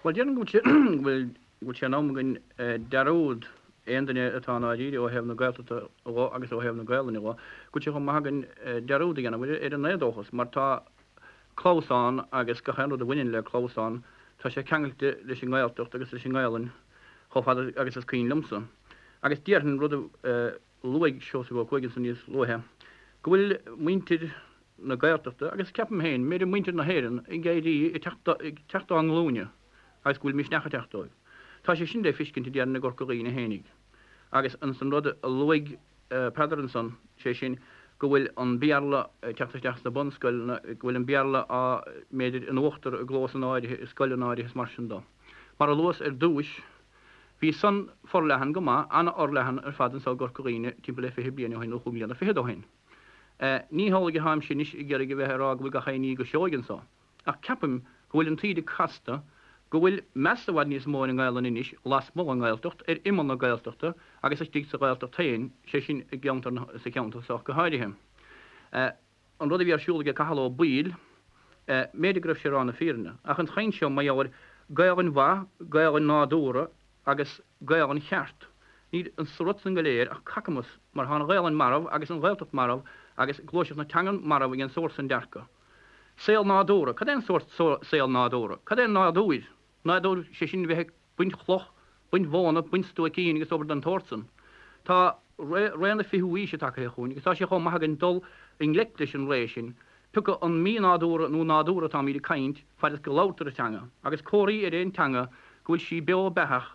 Bhuel, déarfainn go bhfuil go bhfuil sé in am againn dearúd, aon duine atá i ndáiríre ó thaobh na Gaeltachta dho agus ó thaobh na Gaelainne dho, go bhfuil sé chomh maith againn dearúd a dhéanamh ar an éadóchas mar tá clamhsán agus gach aon rud a bhaineann le clamhsán, tá sé ceangailte leis an nGaeltacht agus leis an nGaelainn chomh fada agus is cuimhin liomsa. Agus déarfainn, rud a luaigh Seosamh Ó Cuaig ansan níos luaithe, go bhfuil muintir na Gaeltachta, agus ceapaim féin, b'fhéidir muintir na hÉireann, ag éirí, ag teacht dá nglúine agus go bhfuil misneach ag teacht dóibh. Tá sé sin le feiscint, déarfainn, i gCorca Dhuibhne fhéinig. Agus ansan rud a luaigh Peadar ansan, sé sin, go bhfuil an Béarla ag teacht isteach sna bunscoileanna, go bhfuil an Béarla á, mb'fhéidir, in uachtar i gclósanna áirithe, i scoileanna áirithe is mar sin dó. Mar a luas ar dtúis, bhí san forleathan go maith, an-fhorleathan ar fad anso i gCorca Dhuibhne timpeall le 20 bliain ó shin, nó chúig mbliana fichead ó shin. Ní hamhlaidh atáimse anois ag iarraidh a bheith ag rá go bhfuil gach aon ní go seoigh anso. Ach ceapaim go bhfuil an taoide casta, go bhfuil meas i bhfad níos mó ar an nGaelainn anois lasmuigh den nGaeltacht, ar imeall na Gaeltachta agus istigh sa Ghaeltacht féin, sé sin i gceantar na, sa cheantar seo go háirithe. An rud a bhí ar siúl aige Cathal Ó Baoill, mb'fhéidir go raibh sé ag rá na fírinne, ach an chaint seo mar gheall ar Gaelainn mhaith, Gaelainn nádúrtha agus Gaelainn cheart. Níl sa rud san go léir ach cacamas mar tá an Ghaelainn marbh agus an Ghaeltacht marbh agus gluaiseacht na teangan marbh ag an sórt san dearcadh. Saol nádúrtha. Cad é an sórt saol nádúrtha? Cad é nádúir? Nádúr, sé sin bheith ag baint chloch, baint mhóna, baint stuaicín agus obair den tsórt san. Tá ré na fichiú aoise tagaithe chugainn agus tá sé chomh maith againn dul i ngleic leis an ré sin, pioca an mí-nádúrtha nó nádúrtha atáimíd ag caint, faid is go labhartar an teanga, agus comharthaí ar aon teanga go bhfuil sí beo beathach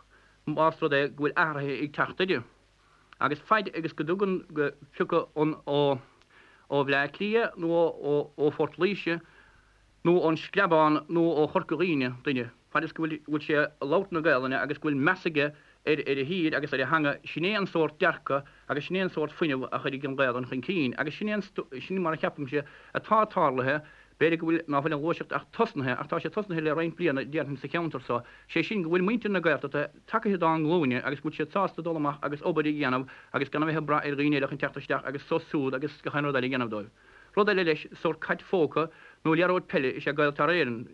más rud é go bhfuil athruithe ag teacht uirthi. Agus faid agus go dtugann go pioca an ó ó Bhleá Cliath nó ó ó Phort Laoise nó ón Screabán nó ó Chorca Dhuibhne duine, faid is go bhfuil bhfuil sé ag labhairt na Gaelainne agus go bhfuil meas aige ar ar a thír agus ar a theanga, sin é an sórt dearcadh agus sin é an sórt fuinneamh a chuirfidh an Ghaelainn chun cinn. Agus sin é an sin mar a cheapaimse atá tarlaithe B'fhéidir go bhfuil, ná fuil an ghluaiseacht ach tosnaithe, ach tá sé tosnaithe le roinnt bliana, déarfainn, sa cheantar so, sé sin go bhfuil muintir na Gaeltachta tagaithe dá nglúine agus go bhfuil siad sásta dul amach agus obair a dhéanamh agus gan a bheith ag brath ar dhaoine eile chun teacht isteach agus sos súd agus gach aon rud eile a dhéanamh dóibh. Rud eile leis, sórt cait phóca nó liathróid peile is ea Gaeltarra Éireann.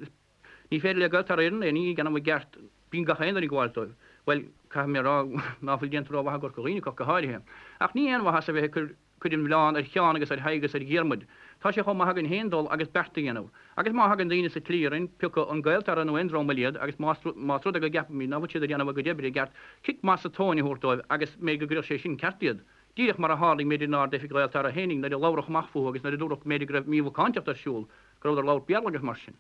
Ní féidir le Gaeltarra Éireann aon ní a dhéanamh i gceart, bíonn gach aon duine ag gabháil dóibh. Bhuel, caithfidh mé a rá ná fuil déanta rómhaith i gCorca Dhuibhne acu ach go háirithe. Ach ní aon mhaitheas a bheith ag cur Cuir an mhilleán ar Sheán agus ar Thadhg agus ar Dhiarmuid. Tá sé chomh maith againn féin dul agus beart a dhéanamh. Agus má thagann daoine sa tslí orainn, pioca an Gaeltarra nó aon dream eile iad, agus más más rud é go gceapaimid ná fuil siad ag déanamh a gcuid oibre i gceart, cic maith sa tóin a thabhairt dóibh agus mb'fhéidir go gcuirfeadh sé sin ceart iad. Díreach mar a tharlaigh mb'fhéidir in Ard-Oifig Ghaeltarra fhéinig nuair a labhradh amach fúthu agus nuair a dúradh go mb'fhéidir go raibh mímhacántacht ar siúl, go rabhadar ag labhairt Béarla agus mar sin.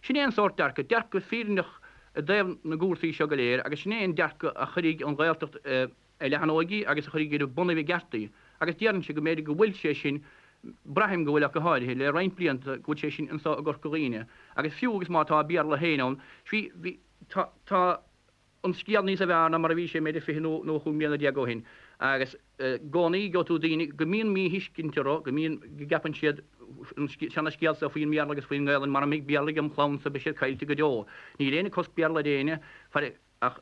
Sin é an sórt dearcadh, dearcadh fírinneach i dtaobh na gcúrsaí seo go léir agus sin é an dearcadh a chuirfidh an Ghaeltacht i a leathanóidh agus a chuirfidh ar a bonnaibh i gceart í, agus déarfainnse go mb'fhéidir go bhfuil sé sin, braithim go bhfuil ach go háirithe, le roinnt blianta, go bhfuil sé sin anso i gCorca Dhuibhne, agus fiú agus má tá Béarla féin ann, bhí, bhí, tá, tá an scéal níosa bhfearr ná mar a bhí sé mb'fhéidir 20 nó, nó 15 mbliana ó shin, agus i gcónaí gheobhaidh tú daoine go mbíonn míthuiscint orthu, go mbíonn, go gceapann siad an seana-scéal so faoin mBéarla agus faoin nGaelainn, mara mbeidh Béarla agam chlannsa beidh siad caillte go deo. Níl éinne ag cosc Béarla ar éinne, faraor, ach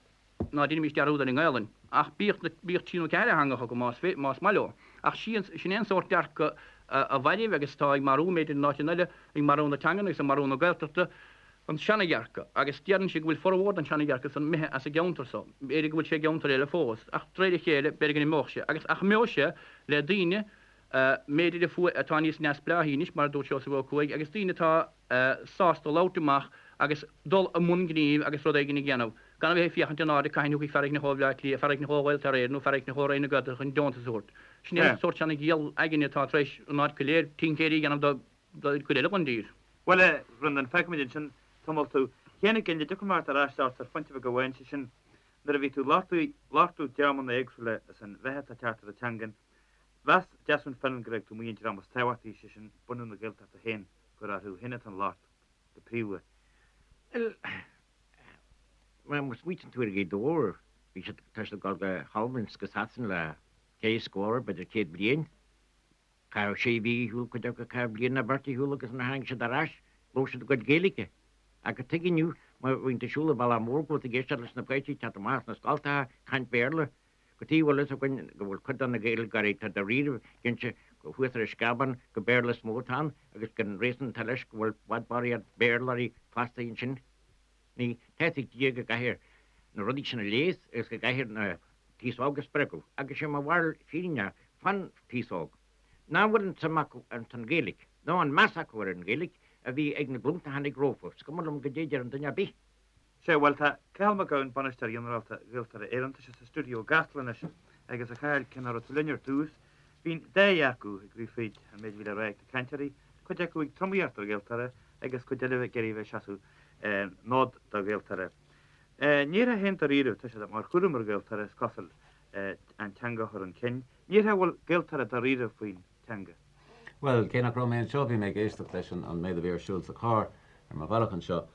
ná deinimis dearúd ar an nGaelainn. Ach bíodh na, bíodh trí nó ceathair theangacha acu más, más maith leo. Ach sí, sin é an sórt dearcadh a mhairbh agus atá ag marú, mb'fhéidir in áiteanna eile, ag marú na teangan agus ag marú na Gaeltachta, an seanadhearcadh. Agus déarfainnse go bhfuil formhór den seanadhearcadh san imithe as an gceantar so. B'fhéidir go bhfuil sé i gceantair eile fós, ach de réir a chéile, b'fhéidir go n-imeodh sé. Agus, ach imeoidh sé le daoine, mb'fhéidir a fuair, atá níos neamhspleáichí anois, mar a dúirt Seosamh Ó Cuaig, agus daoine atá sásta labhairt amach agus dul i mbun gnímh agus rud éigin a dhéanamh, gan a bheith ag féachaint in airde cathain a thiocfaidh fear éicint ó Bhleá Cliath, fear éicint ó Ghaeltarra Éireann nó fear éicint ó Roinn na Gaeltachta chun deontas a thabhairt. Sin é an sórt seana-ghiall aigne atá tar éis an áit go léir tincéirí a dhéanamh don chuid eile den dtír. Bhuel, a Bhreandáin, fágfaimid ansin tamall tú. A Sheáin Uí Fhinn, an dtiocfaidh mé ort ar ais ort ar phointe bheag amháin, sé sin, nuair a bhí tú ag labhairt dreamanna éagsúla is an mheath atá ag teacht ar an teangain, mheas Desmond Fenlon go raibh tú amuigh an dream is tábhachtaí, sé sin, bunadh na Gaeltachta féin, gur orthu féin atá an locht, go príomha. Bhuel, má smaoitíonn tú ar Ghaoth Dobhair, bhí siad, tá siad ag dul go hAlbain 's go Sasain le ceithre scór, b'fhéidir 100 bliain. Caitheadh sé mhí ar shiúl, cuid acu caitheadh bliain nó beirt ar shiúl agus nuair a tháinig siad ar ais, labhair siad a gcuid Gaeilge. Ach cad tuige inniu, má bhíonn tú ag siúl an bealach mór go bhfuil tú ag éisteacht leis na páistí ag teacht amach as na scoltacha ag caint Béarla. Cad tuige a bhfuil fhios againn go bhfuil cuid de na Gaeilgeoirí atá dáiríre cinnte thuas ar an Screabán gur Béarla is mó atá ann agus gur an réasún atá leis go bhfuil i bhfad barraíocht Béarlóirí fostaithe ansin. Ní tá fhios ag Dia go gcaithfear na rudaí sin a leigheas agus go gcaithfear an t-aos óg a spreagadh agus sé mo bharúil fírinneach fán t-aos óg nach bhfuil an tsuim acu ins an Ghaeilge nó an meas acu ar an Ghaeilge a bhí ag na glúnta a tháinig rompu. Is cuma liom goidé a deir an duine ar bith. Sea, bhuel, tá Cathal Mac Gabhann, Bainisteoir Ginearálta Ghaeltarra Éireann, tá sé sa stiúideo i gCasla anois agus a Chathail, cé nach raibh tú linn ar dtús, bhí an dá dhearcadh ag rith fríd an méid a bhí le rá ag na cainteoirí, cuid acu ag tromaíocht ar Ghaeltarra agus cuid eile ag iarraidh a bheith ag seasamh an fhóid do Ghaeltarra. Ní déarfá féin dáiríre, tá sé mar chúram ar Ghaeltarra, is cosúil, an teanga a chur chun cinn. Ní déarfá go bhfuil Gaeltarra dáiríre faoin teanga. Bhuel, cé nach raibh mé anseo, bhí mé ag éisteacht leis an méid a bhí ar siúl sa charr ar mo bhealach anseo.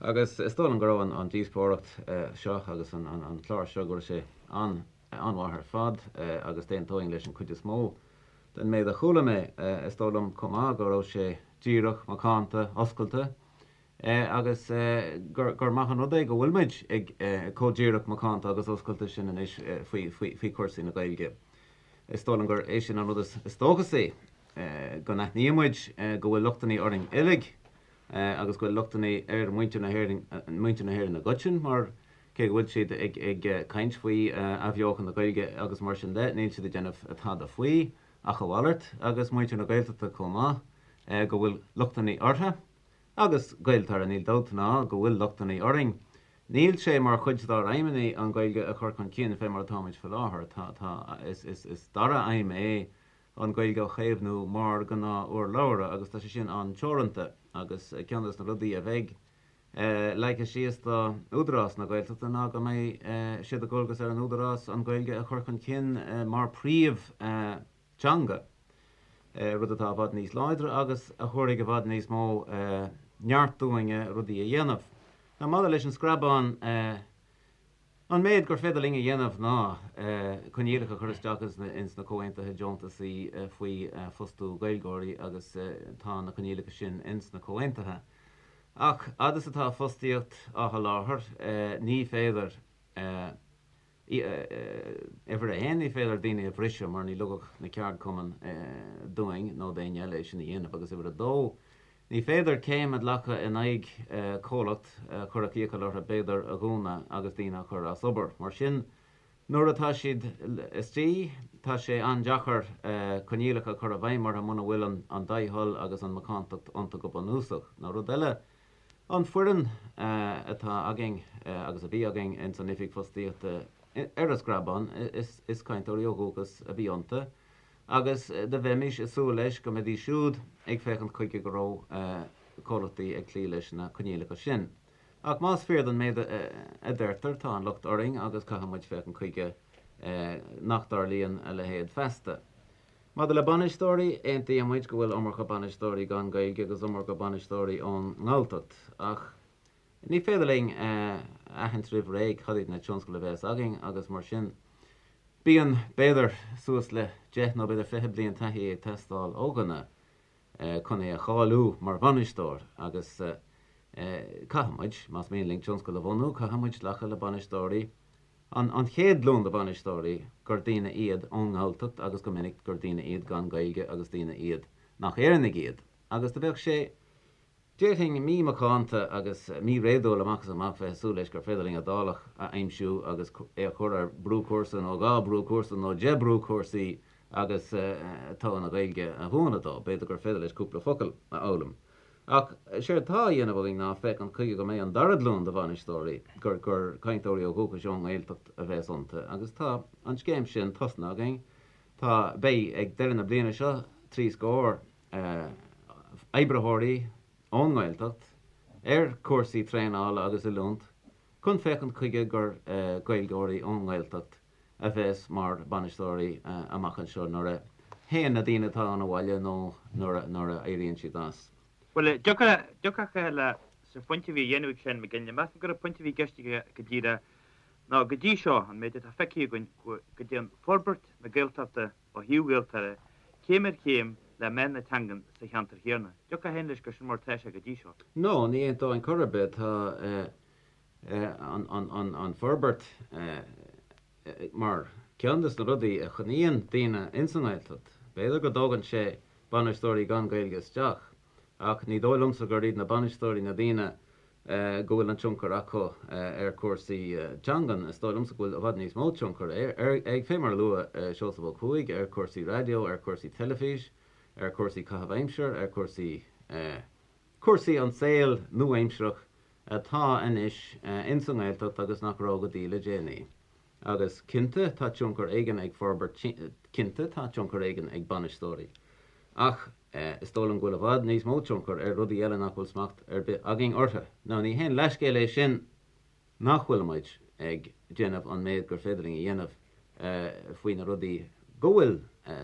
Agus is dóigh liom go raibh an díospóireacht seo agus an clár seo, go raibh sé an-mhaith ar fad agus d'aontóinn leis an chuid is mó den méid a chuala mé. Is dóigh liom chomh maith go raibh sé díreach, macánta, oscailte agus gur maith an rud é go bhfuil muid ag chomh díreach, macánta agus oscailte sin anois faoi chúrsaí na Gaeilge. Is dóigh liom gur é sin an rud is dóchasaí, go n-aithníonn muid go bhfuil lochtanna orainn uilig agus go bhfuil lochtanna ar mhuintir na hÉireann, muintir na hÉireann i gcoiteann, mar. Cé go bhfuil siad ag caint faoi athbheochan na Gaeilge agus mar sin de, níl siad ag déanamh tada faoi, ach a mhalairt, agus muintir na Gaeltachta chomh maith, go bhfuil lochtanna orthu. Agus Gaeltarra, níl dabht ná go bhfuil lochtanna orainn. Níl sé mar chuid dár aidhmeanna an Ghaeilge a chur chun cinn fé mar atáimid faoi láthair. Tá, tá, is, is, is dara aidhm é an Ghaeilge a chaomhnú mar ghnáth-urlabhra agus tá sé sin an-teoranta agus ceann des na rudaí a bheidh leagtha síos do Údarás na Gaeltachta ná go mbeidh sé de dhualgas ar an Údarás an Ghaeilge a chur chun cinn mar phríomh-teanga, rud atá i bhfad níos láidre agus a thabharfaidh i bhfad níos mó neart dúinne rudaí a dhéanamh. Now maidir leis an screabán, An méid gur féidir linn a dhéanamh ná coinníollacha a chur isteach ins na comhaontuithe deontasaí faoi fostú Gaeilgeoirí agus tá na coinníollacha sin ins na comhaontuithe. Ach fhad is atá fostaíocht á sholáthar ní féidir, uimhir a haon, ní féidir daoine a bhriseadh mar ní ligfeadh na ceardchumainn dúinn nó d'éinne eile é sin a dhéanamh agus uimhir a dó, Ní féidir céim a ghlacadh in aghaidh comhlacht a chuirfeadh iachall orthu b'fhéidir a dhúnadh agus daoine a chur as obair. Mar sin, nuair atá siad istigh, tá sé an-deacair coinníollacha a chur i bhfeidhm orthu muna bhfuil an dea-thoil agus an mhacántacht iontu go bunúsach. Nó rud eile, an foireann atá againn agus a bhí againn ins an Oifig Fostaíochta ar an Screabán, is cainteoirí ó dhúchas a bhí iontu. agus do bheimis ag súil leis go mbeidís siúd ag féachaint chuige go raibh comhlachtaí ag cloí leis na coinníollacha sin. Ach más fíor don méid a deirtear, tá an locht orainn agus caithfidh muid féachaint chuige nach dtarlaíonn a leithéid feasta. Maidir le bainisteoirí, aontaíonn muid go bhfuil iomarca bainisteoirí gan Gaeilge agus iomarca bainisteoirí ón nGalltacht, ach ní féidir linn a aithint roimh ré cad iad na tionscail a bheas againn agus mar sin Bíonn, b'fhéidir, suas le deich nó b'fhéidir 20 bliain taithí ag teastáil ó dhuine chun é a cháiliú mar bhainisteoir agus caithfidh muid, más mian linn tionscal a bhunú, caithfidh muid glacadh le bainisteoirí, an chéad ghlúin de bhainisteoirí, gur daoine iad ón nGalltacht agus go minic gur daoine iad gan Gaeilge agus daoine iad nach Éireannaigh iad agus do bheadh sé Déarfainn mímhacánta agus míréadúil amach is amach bheith ag súil leis gur féidir linn Iodálach a aimsiú agus é a chur ar brúchúrsa nó 2 brúchúrsa nó 10 brúchúrsaí agus togha na Gaeilge a mhúineadh dó. B'fhéidir gur féidir leis cúpla focal a fhoghlaim. Ach séard tá á dhéanamh againn ná féachaint chuige go mbeidh an dara glúin de bhainisteoirí, gur gur cainteoirí ó dhúchais ón nGaeltacht a bheas iontu agus tá an scéim sin tosnaithe againn. Tá, beidh ag deireadh na bliana seo, 3 scór oibritheoirí ón nGaeltacht ar chúrsaí traenála agus oiliúint chun féachaint chuige gur Gaeilgeoirí ón nGaeltacht a bheas mar bhainisteoirí amach anseo nuair a théann na daoine atá ann abhaile nó nuair a éiríonn siad as. Bhuel, dtiocfadh le sa phointe a bhí a dhéanamh ag Seán Mac Ginlea, measaim gur an pointe a bhí i gceist aige go díreach ná go dtí seo, an méid atá feicthe againn, go dtéann forbairt na Gaeltachta ó thaobh Ghaeltarra, céim ar chéim le meath na teangan sa cheantar chéanna. Dtiocfá féin leis gur sin mar atá sé go dtí seo. No, ní aontóinn chor ar bith. Tá an forbairt mar ceann de na rudaí a choinníonn daoine ins an nGaeltacht. B'fhéidir go dtógann sé bainisteoirí gan Gaeilge isteach, ach ní dóigh liomsa gur iad na bainisteoirí na daoine go bhfuil an tionchar acu ar chúrsaí teangan. Is dóigh liomsa go bhfuil i bhfad níos mó tionchar ag, fé mar a luaigh Seosamh Ó Cuaig, ar chúrsaí raidió, ar chúrsaí teilifís, ar chúrsaí caitheamh aimsire, ar chúrsaí, cúrsaí an saol nua-aimsearach atá anois ins an nGaeltacht agus nach raibh go dtí le déanaí. Agus cinnte tá tionchar éigin ag forbairt, cinnte tá tionchar éigin ag bainisteoirí. Ach is dóigh liom go bhfuil i bhfad níos mó tionchar ar rudaí eile nach bhfuil smacht ar bith againn orthu. Now ní haon leithscéal é sin nach bhfuil muid ag déanamh an méid gur féidir linn a dhéanamh faoi na rudaí go bhfuil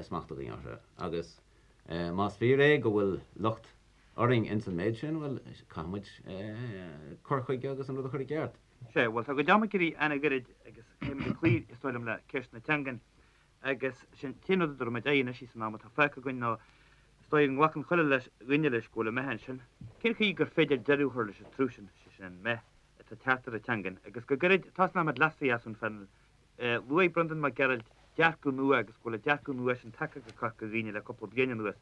smacht againn orthu. Agus más fíor é go bhfuil locht orainn ins an méid sin, bhuel, caithfidh muid cur chuige agus an rud a chur i gceart. Sea, bhuel, tá a gcuid ama ag éirí an-ghairid agus caithfidh muid cloí, is dóigh liom, le ceist na teangan. Agus sin an t-aon rud a dtabharfaidh muid aghaidh anois san am atá fágtha againn ná is dóigh go nglacann chuile leis, dhuine leis go bhfuil an meath ansin. Cén chaoi gur féidir deireadh a chur leis an trup sin, sé sin an meath atá ag teacht ar an teangain. Agus go gairid, tosnóidh muid leatsa a Sheáin. Luaigh Breandán Mac Gearailt dearcadh nua agus go bhfuil an dearcadh nua sin tagtha go Corca Dhuibhne le cúpla bliain anuas.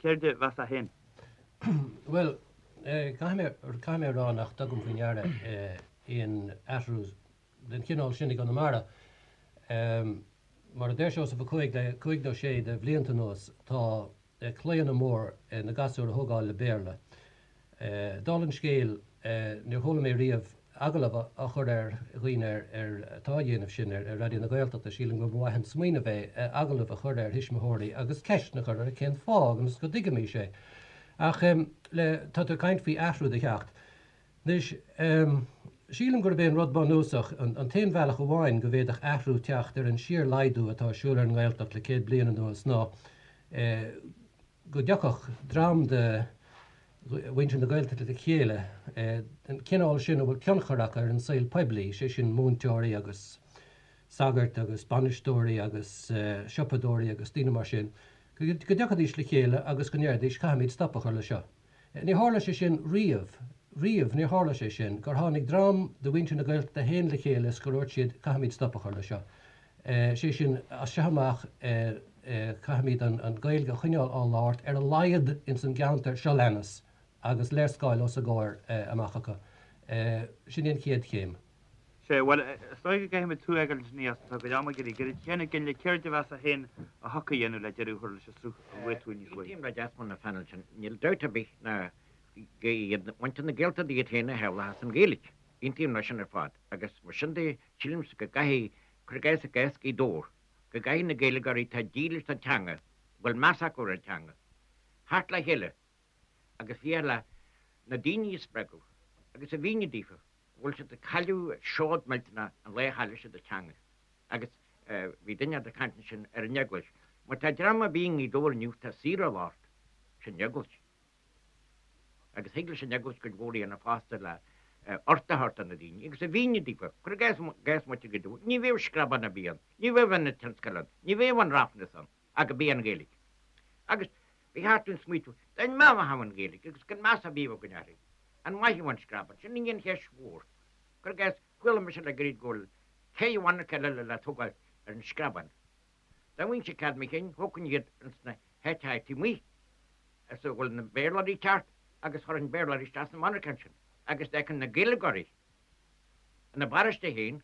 Céard a mheasfá féin? Bhuel, caithfidh mé, caithfidh mé a rá nach dtugaim faoi ndeara aon athrú. den chineál sin i gConamara. Mar a deir Seosamh Ó Cuaig, le cúig nó sé de bhlianta anuas tá claonadh mór na gasúir a thógáil le Béarla. Dála an scéil, níor chuala mé riamh agallamh á chur ar dhaoine ar atá á dhéanamh sin ar Raidió na Gaeltachta. Sílim go mba mhaith an smaoineamh é agallamh a chur ar thuismitheoirí agus ceisteanna a chur orthu cén fáth agus go dtuigfimis é. Ach le, tá tú ag caint faoi athrú do theacht. Anois, sílim gurb é an rud bunúsach, an t-aon bhealach amháin go bhféadfadh athrú teacht ar an síor-laghdú atá ar siúl ar an nGaeltacht le 100 bliain anuas ná go dtiocfadh dream de mhuintir na Gaeltachta le chéile, den chineál sin a bhfuil tionchar acu ar an saol poiblí, sé sin múinteoirí agus sagairt agus bainisteoirí agus siopadóirí agus daoine mar sin, go dtiocfaidís le chéile agus go ndéarfaidís 'caithfimid stop a chur le seo'. Níor tharla sé sin riamh, riamh níor tharla sé sin, gur tháinig dream de mhuintir na Gaeltachta féin le chéile is gur dhúirt siad 'caithfimid stop a chur le seo'. Sé sin, as seo amach caithfimid an Ghaeilge a choinneáil á labhairt ar a laghad ins an gceantar seo leanas agus léarscáil os a gcomhair amach acu. Sin í an chéad chéim. Sea, bhuel, is dóigh go gcaithfimid tú a fhágáil ansin a Dheasmond, tá cuid ama ag éirí gairid. Sheáin Mhic Fhionnghaile, céard a mheasfá féin a thiocfadh a dhéanamh le deireadh a chur leis an sruth a luaigh tú níos luaithe? Aontaím le Deasmond na phainéil sin. Níl dabht ar bith ná go iad muintir na Gaeltachta iad féin a shamhlóchas an Ghaeilge. Aontaím leis sin ar fad. Agus mar sin de, sílimse go gcaithfidh, cuir i gcás i gcás Ghaoth Dobhair, go gcaithfidh na Gaeilgeoirí atá dílis don teanga, a bhfuil meas acu ar an teanga, theacht le chéile agus féach le na daoine a spreagadh agus a mhíniú daofa go bhfuil siad ag cailleadh seod millteanach an lá a chaillfidh siad an teanga. Agus bhí duine ag caint ansin ar an Eaglais. Má tá dream ar bith i nGaoth Dobhair inniu atá saor á labhairt, sin Eaglais. Agus thig leis an Eaglais cuid mhór a dhéanamh fosta le ort a thabhairt do na daoine agus a mhíniú daofa, cuir i gcás, gcás muintir Ghaoth Dobhair, ní bheadh screabán ar bith ann, ní bheadh ionad tionscail ann, ní bheadh an Ráfnas ann ach go b'é an Ghaeilge. Agus ba cheart dúinn smaoitiú, dá mbeadh an Ghaeilge agus gan meas ar bith againn uirthi, an mairfeadh an screabán? Sin í an cheist mhór. Cuir i gcás, chuala mise le gairid go bhfuil cé mhonarcha eile le tógáil ar an screabán. Dá bhfaighinnse cead mo chinn, thógfainn iad ins na háiteacha taobh amuigh is a bhfuil na Béarlóirí ag teacht agus chuirfinn Béarlóirí isteach sna monarcháin sin agus d'fheicfinn na Gaeilgeoirí ina bparóiste féin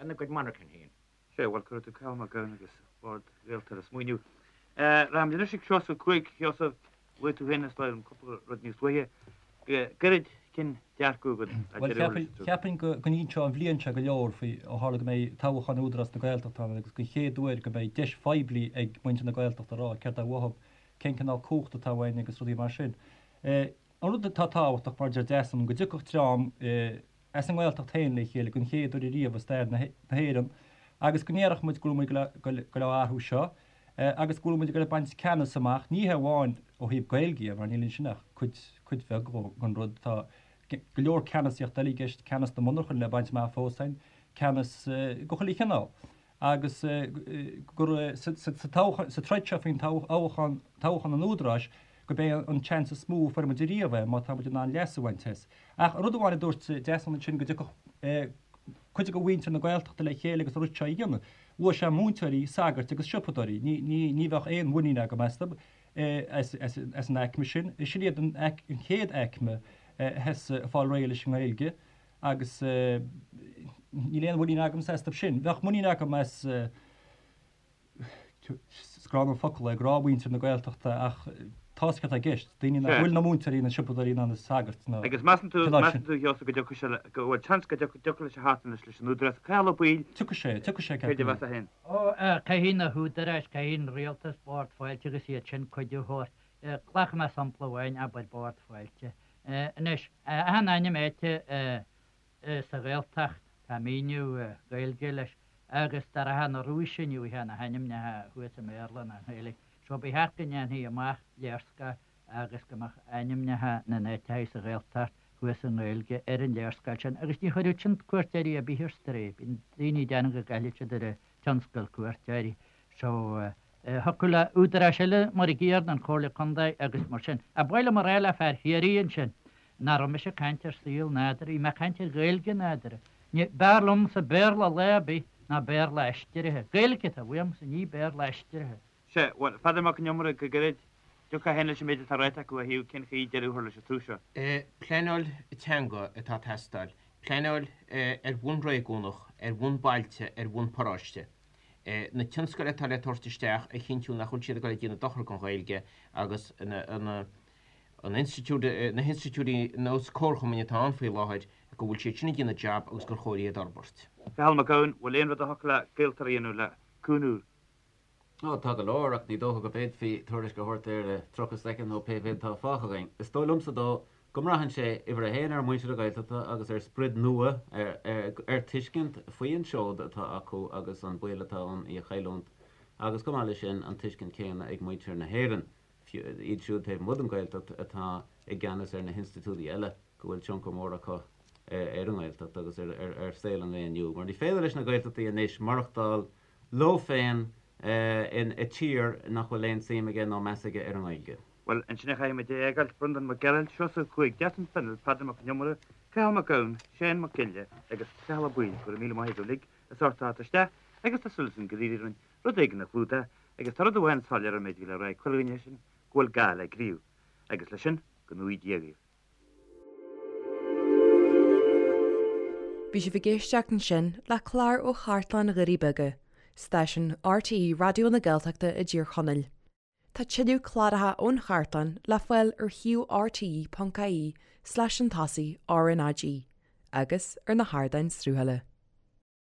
ina gcuid monarchan féin. Sea, bhuel, cuirfidh tú Cathal Mac Gabhann agus Bord Ghaeltarra ag smaoineamh. Rachaimid anois ag Seosamh Ó Cuaig. Sheosamh, Luaigh tú féin is dóigh liom cúpla rud níos luaithe. Go gairid, cén dearcadh agat le Bhuel, deireadh a chur leis an sruth? cheapfainn go n-inseodh an bhliain seo go leor faoi, ó tharla go mbeidh toghchán Údarás na Gaeltachta ann agus don chéad uair go mbeidh deis phoiblí ag muintir na Gaeltachta a rá céard atá uathu, cén cineál cumhacht atá uainn agus rudaí mar sin. An rud atá tábhachtach, mar a deir Deasún, go dtiocfadh dream as an nGaeltacht féin le chéile don chéad uair ariamh i stair na hÉireann agus go ndéarfadh muid go bhfuil muid ag goil á athrú seo agus go bhfuil muid ag goil ag baint ceannas amach, ní hé amháin ó thaobh Gaeilge dhe, mar níl ansin ach cuid, cuid bheag den rud. Tá go leor ceannasaíocht eile i gceist, ceannas na monarchan le baint amach fós againn, ceannas de chuile chineál. agus gur sa troid seo faoin toghchán, toghchán an Údaráis, gurb é an seans is mó a fuair muid ariamh é, má tá muid in ann leas a bhaint as. Ach rud amháin a dúirt Deasún ansin, go dtiocfadh cuid de mhuintir na Gaeltachta le chéile agus an rud seo a dhéanamh. Luaigh sé múinteoirí, sagairt agus siopadóirí. Ní bheadh aon mhuinín agam astu, as an aicme sin. Sin iad an chéad aicme a bheas ag fáil réidh leis an nGaeilge. agus níl aon mhuinín agamsa astu sin. Bheadh muinín agam as, is gránna an focal é, gnáthmhuintir na Gaeltachta ach tá's agat céard atá i gceist, daoine nach bhfuil ina múinteoirí, ina siopadóirí ná ina sagairt ná Agus measann tú, measann tú, Sheosamh, go dtiocfaidh sé le, go bhfuil seans go dtiocfaidh leis a theacht anois leis an Údarás? Cathal Ó Baoill, Tiocfaidh sé, tiocfaidh sé, céard a mheasfá féin? Ó, caithfidh na húdaráis, caithfidh an rialtas, Bord Fáilte agus iad sin cuidiú a thabhairt. Glacfaidh mé sampla amháin, abair Bord Fáilte. Anois, achan ainm áite sa Ghaeltacht, tá míniú Gaeilge leis, agus dá rachfá na Rúise ní bhfaighfeá na hainmneacha thuas i mBéarla ná i nGaeilge. So ba cheart go ndéanfaí amach léarscáil agus go mbeadh ainmneacha na n-áiteacha sa Ghaeltacht thuas i nGaeilge ar an léarscáil sin agus ní chuirfeadh sin cuairteoirí ar bith ar strae. Bíonn daoine ag déanamh go gcaillfidh siad ar an tionscal cuairteoirí. So, thiocfadh le údaráis eile mar a gcéanna, an Chomhairle Contae agus mar sin. Ach ba mhaith liom a rá le fear Chiarraí ansin nach raibh mise ag caint ar saol nádúrtha, bhí mé ag caint ar Ghaeilge nádúrtha. Ní, b'fhearr liomsa Béarla lá ar bith ná Béarla aistrithe. Gaeilge atá uaimse, ní Béarla aistrithe. Sea, bhuel, a Pheadair Mac Con Iomaire, go gairid, dtiocfá féin leis an méid atá ráite acu ó thaobh cén chaoi deireadh a chur leis an tsruth seo. Pleanáil teanga atá ag teastáil. Pleanáil ar bhonn réigiúnach, ar bhonn bailte, ar bhonn paróiste. Na tionscail atá le tabhairt isteach a chinntiú nach bhfuil siad ag dul ag déanamh dochar don Ghaeilge agus na an institiúid, na hinstitiúidí nós comharchumainn atá ann faoi láthair, go bhfuil siad sin ag déanamh jab agus gur chóir iad a fhorbairt. Cathal Mac Gabhann, Bhfuil aon rud a thiocfadh le Gaeltarra a dhéanamh le cúnamh? Ó, tá go leor, ach ní dócha go bhféadfaí tuairisc a thabhairt air i 30 soicind nó pé mhéad atá fágtha againn. Is dóigh liomsa dó go mbraitheann sé, uimhir a haon, ar mhuintir na Gaeltachta agus ar sprid nua, ar tuiscint faoi an seod atá acu agus an baol atá ann í a chailliúint, agus chomh maith leis sin, an tuiscint chéanna ag muintir na hÉireann, iad siúd taobh amuigh den Ghaeltacht atá i gceannas ar na hinstitiúidí eile, go bhfuil tionchar mór acu ar an nGaeltacht agus ar saol an lae inniu. Mar ní féidir leis na Gaeltachtaí anois maireachtáil leo féin i tír nach bhfuil aon suim aige nó meas aige ar an nGaeilge. Bhuel, ansin a chaithfimid é a fhágáil, Breandán Mac Gearailt, Seosamh Ó Cuaig, Deasún Fennell, Peadar Mac Con Iomaire, Cathal Mac Gabhann, Séan Mac Giolla agus Cathal Ó Baoill, go raibh míle maith agaibh uilig as ucht teacht isteach agus tá súil againn gur éirigh linn rud éigin a chlúdach agus tá rud amháin soiléir ón méid a bhí le rá ag chuile dhuine sin go bhfuil gá le gníomh. Agus leis sin, go ngnóthaí Dia dhaoibh. Bhí sibh ag éisteacht ansin le clár ó Chartlann Dhoirí Beaga, stáisiún RTÉ Raidió na Gaeltachta i dTír Chonaill. Tá tuilleadh cláracha ón chartlann le fáil ar shuíomh rte.ie slash an tosaigh RnaG agus ar na hardáin sruthála.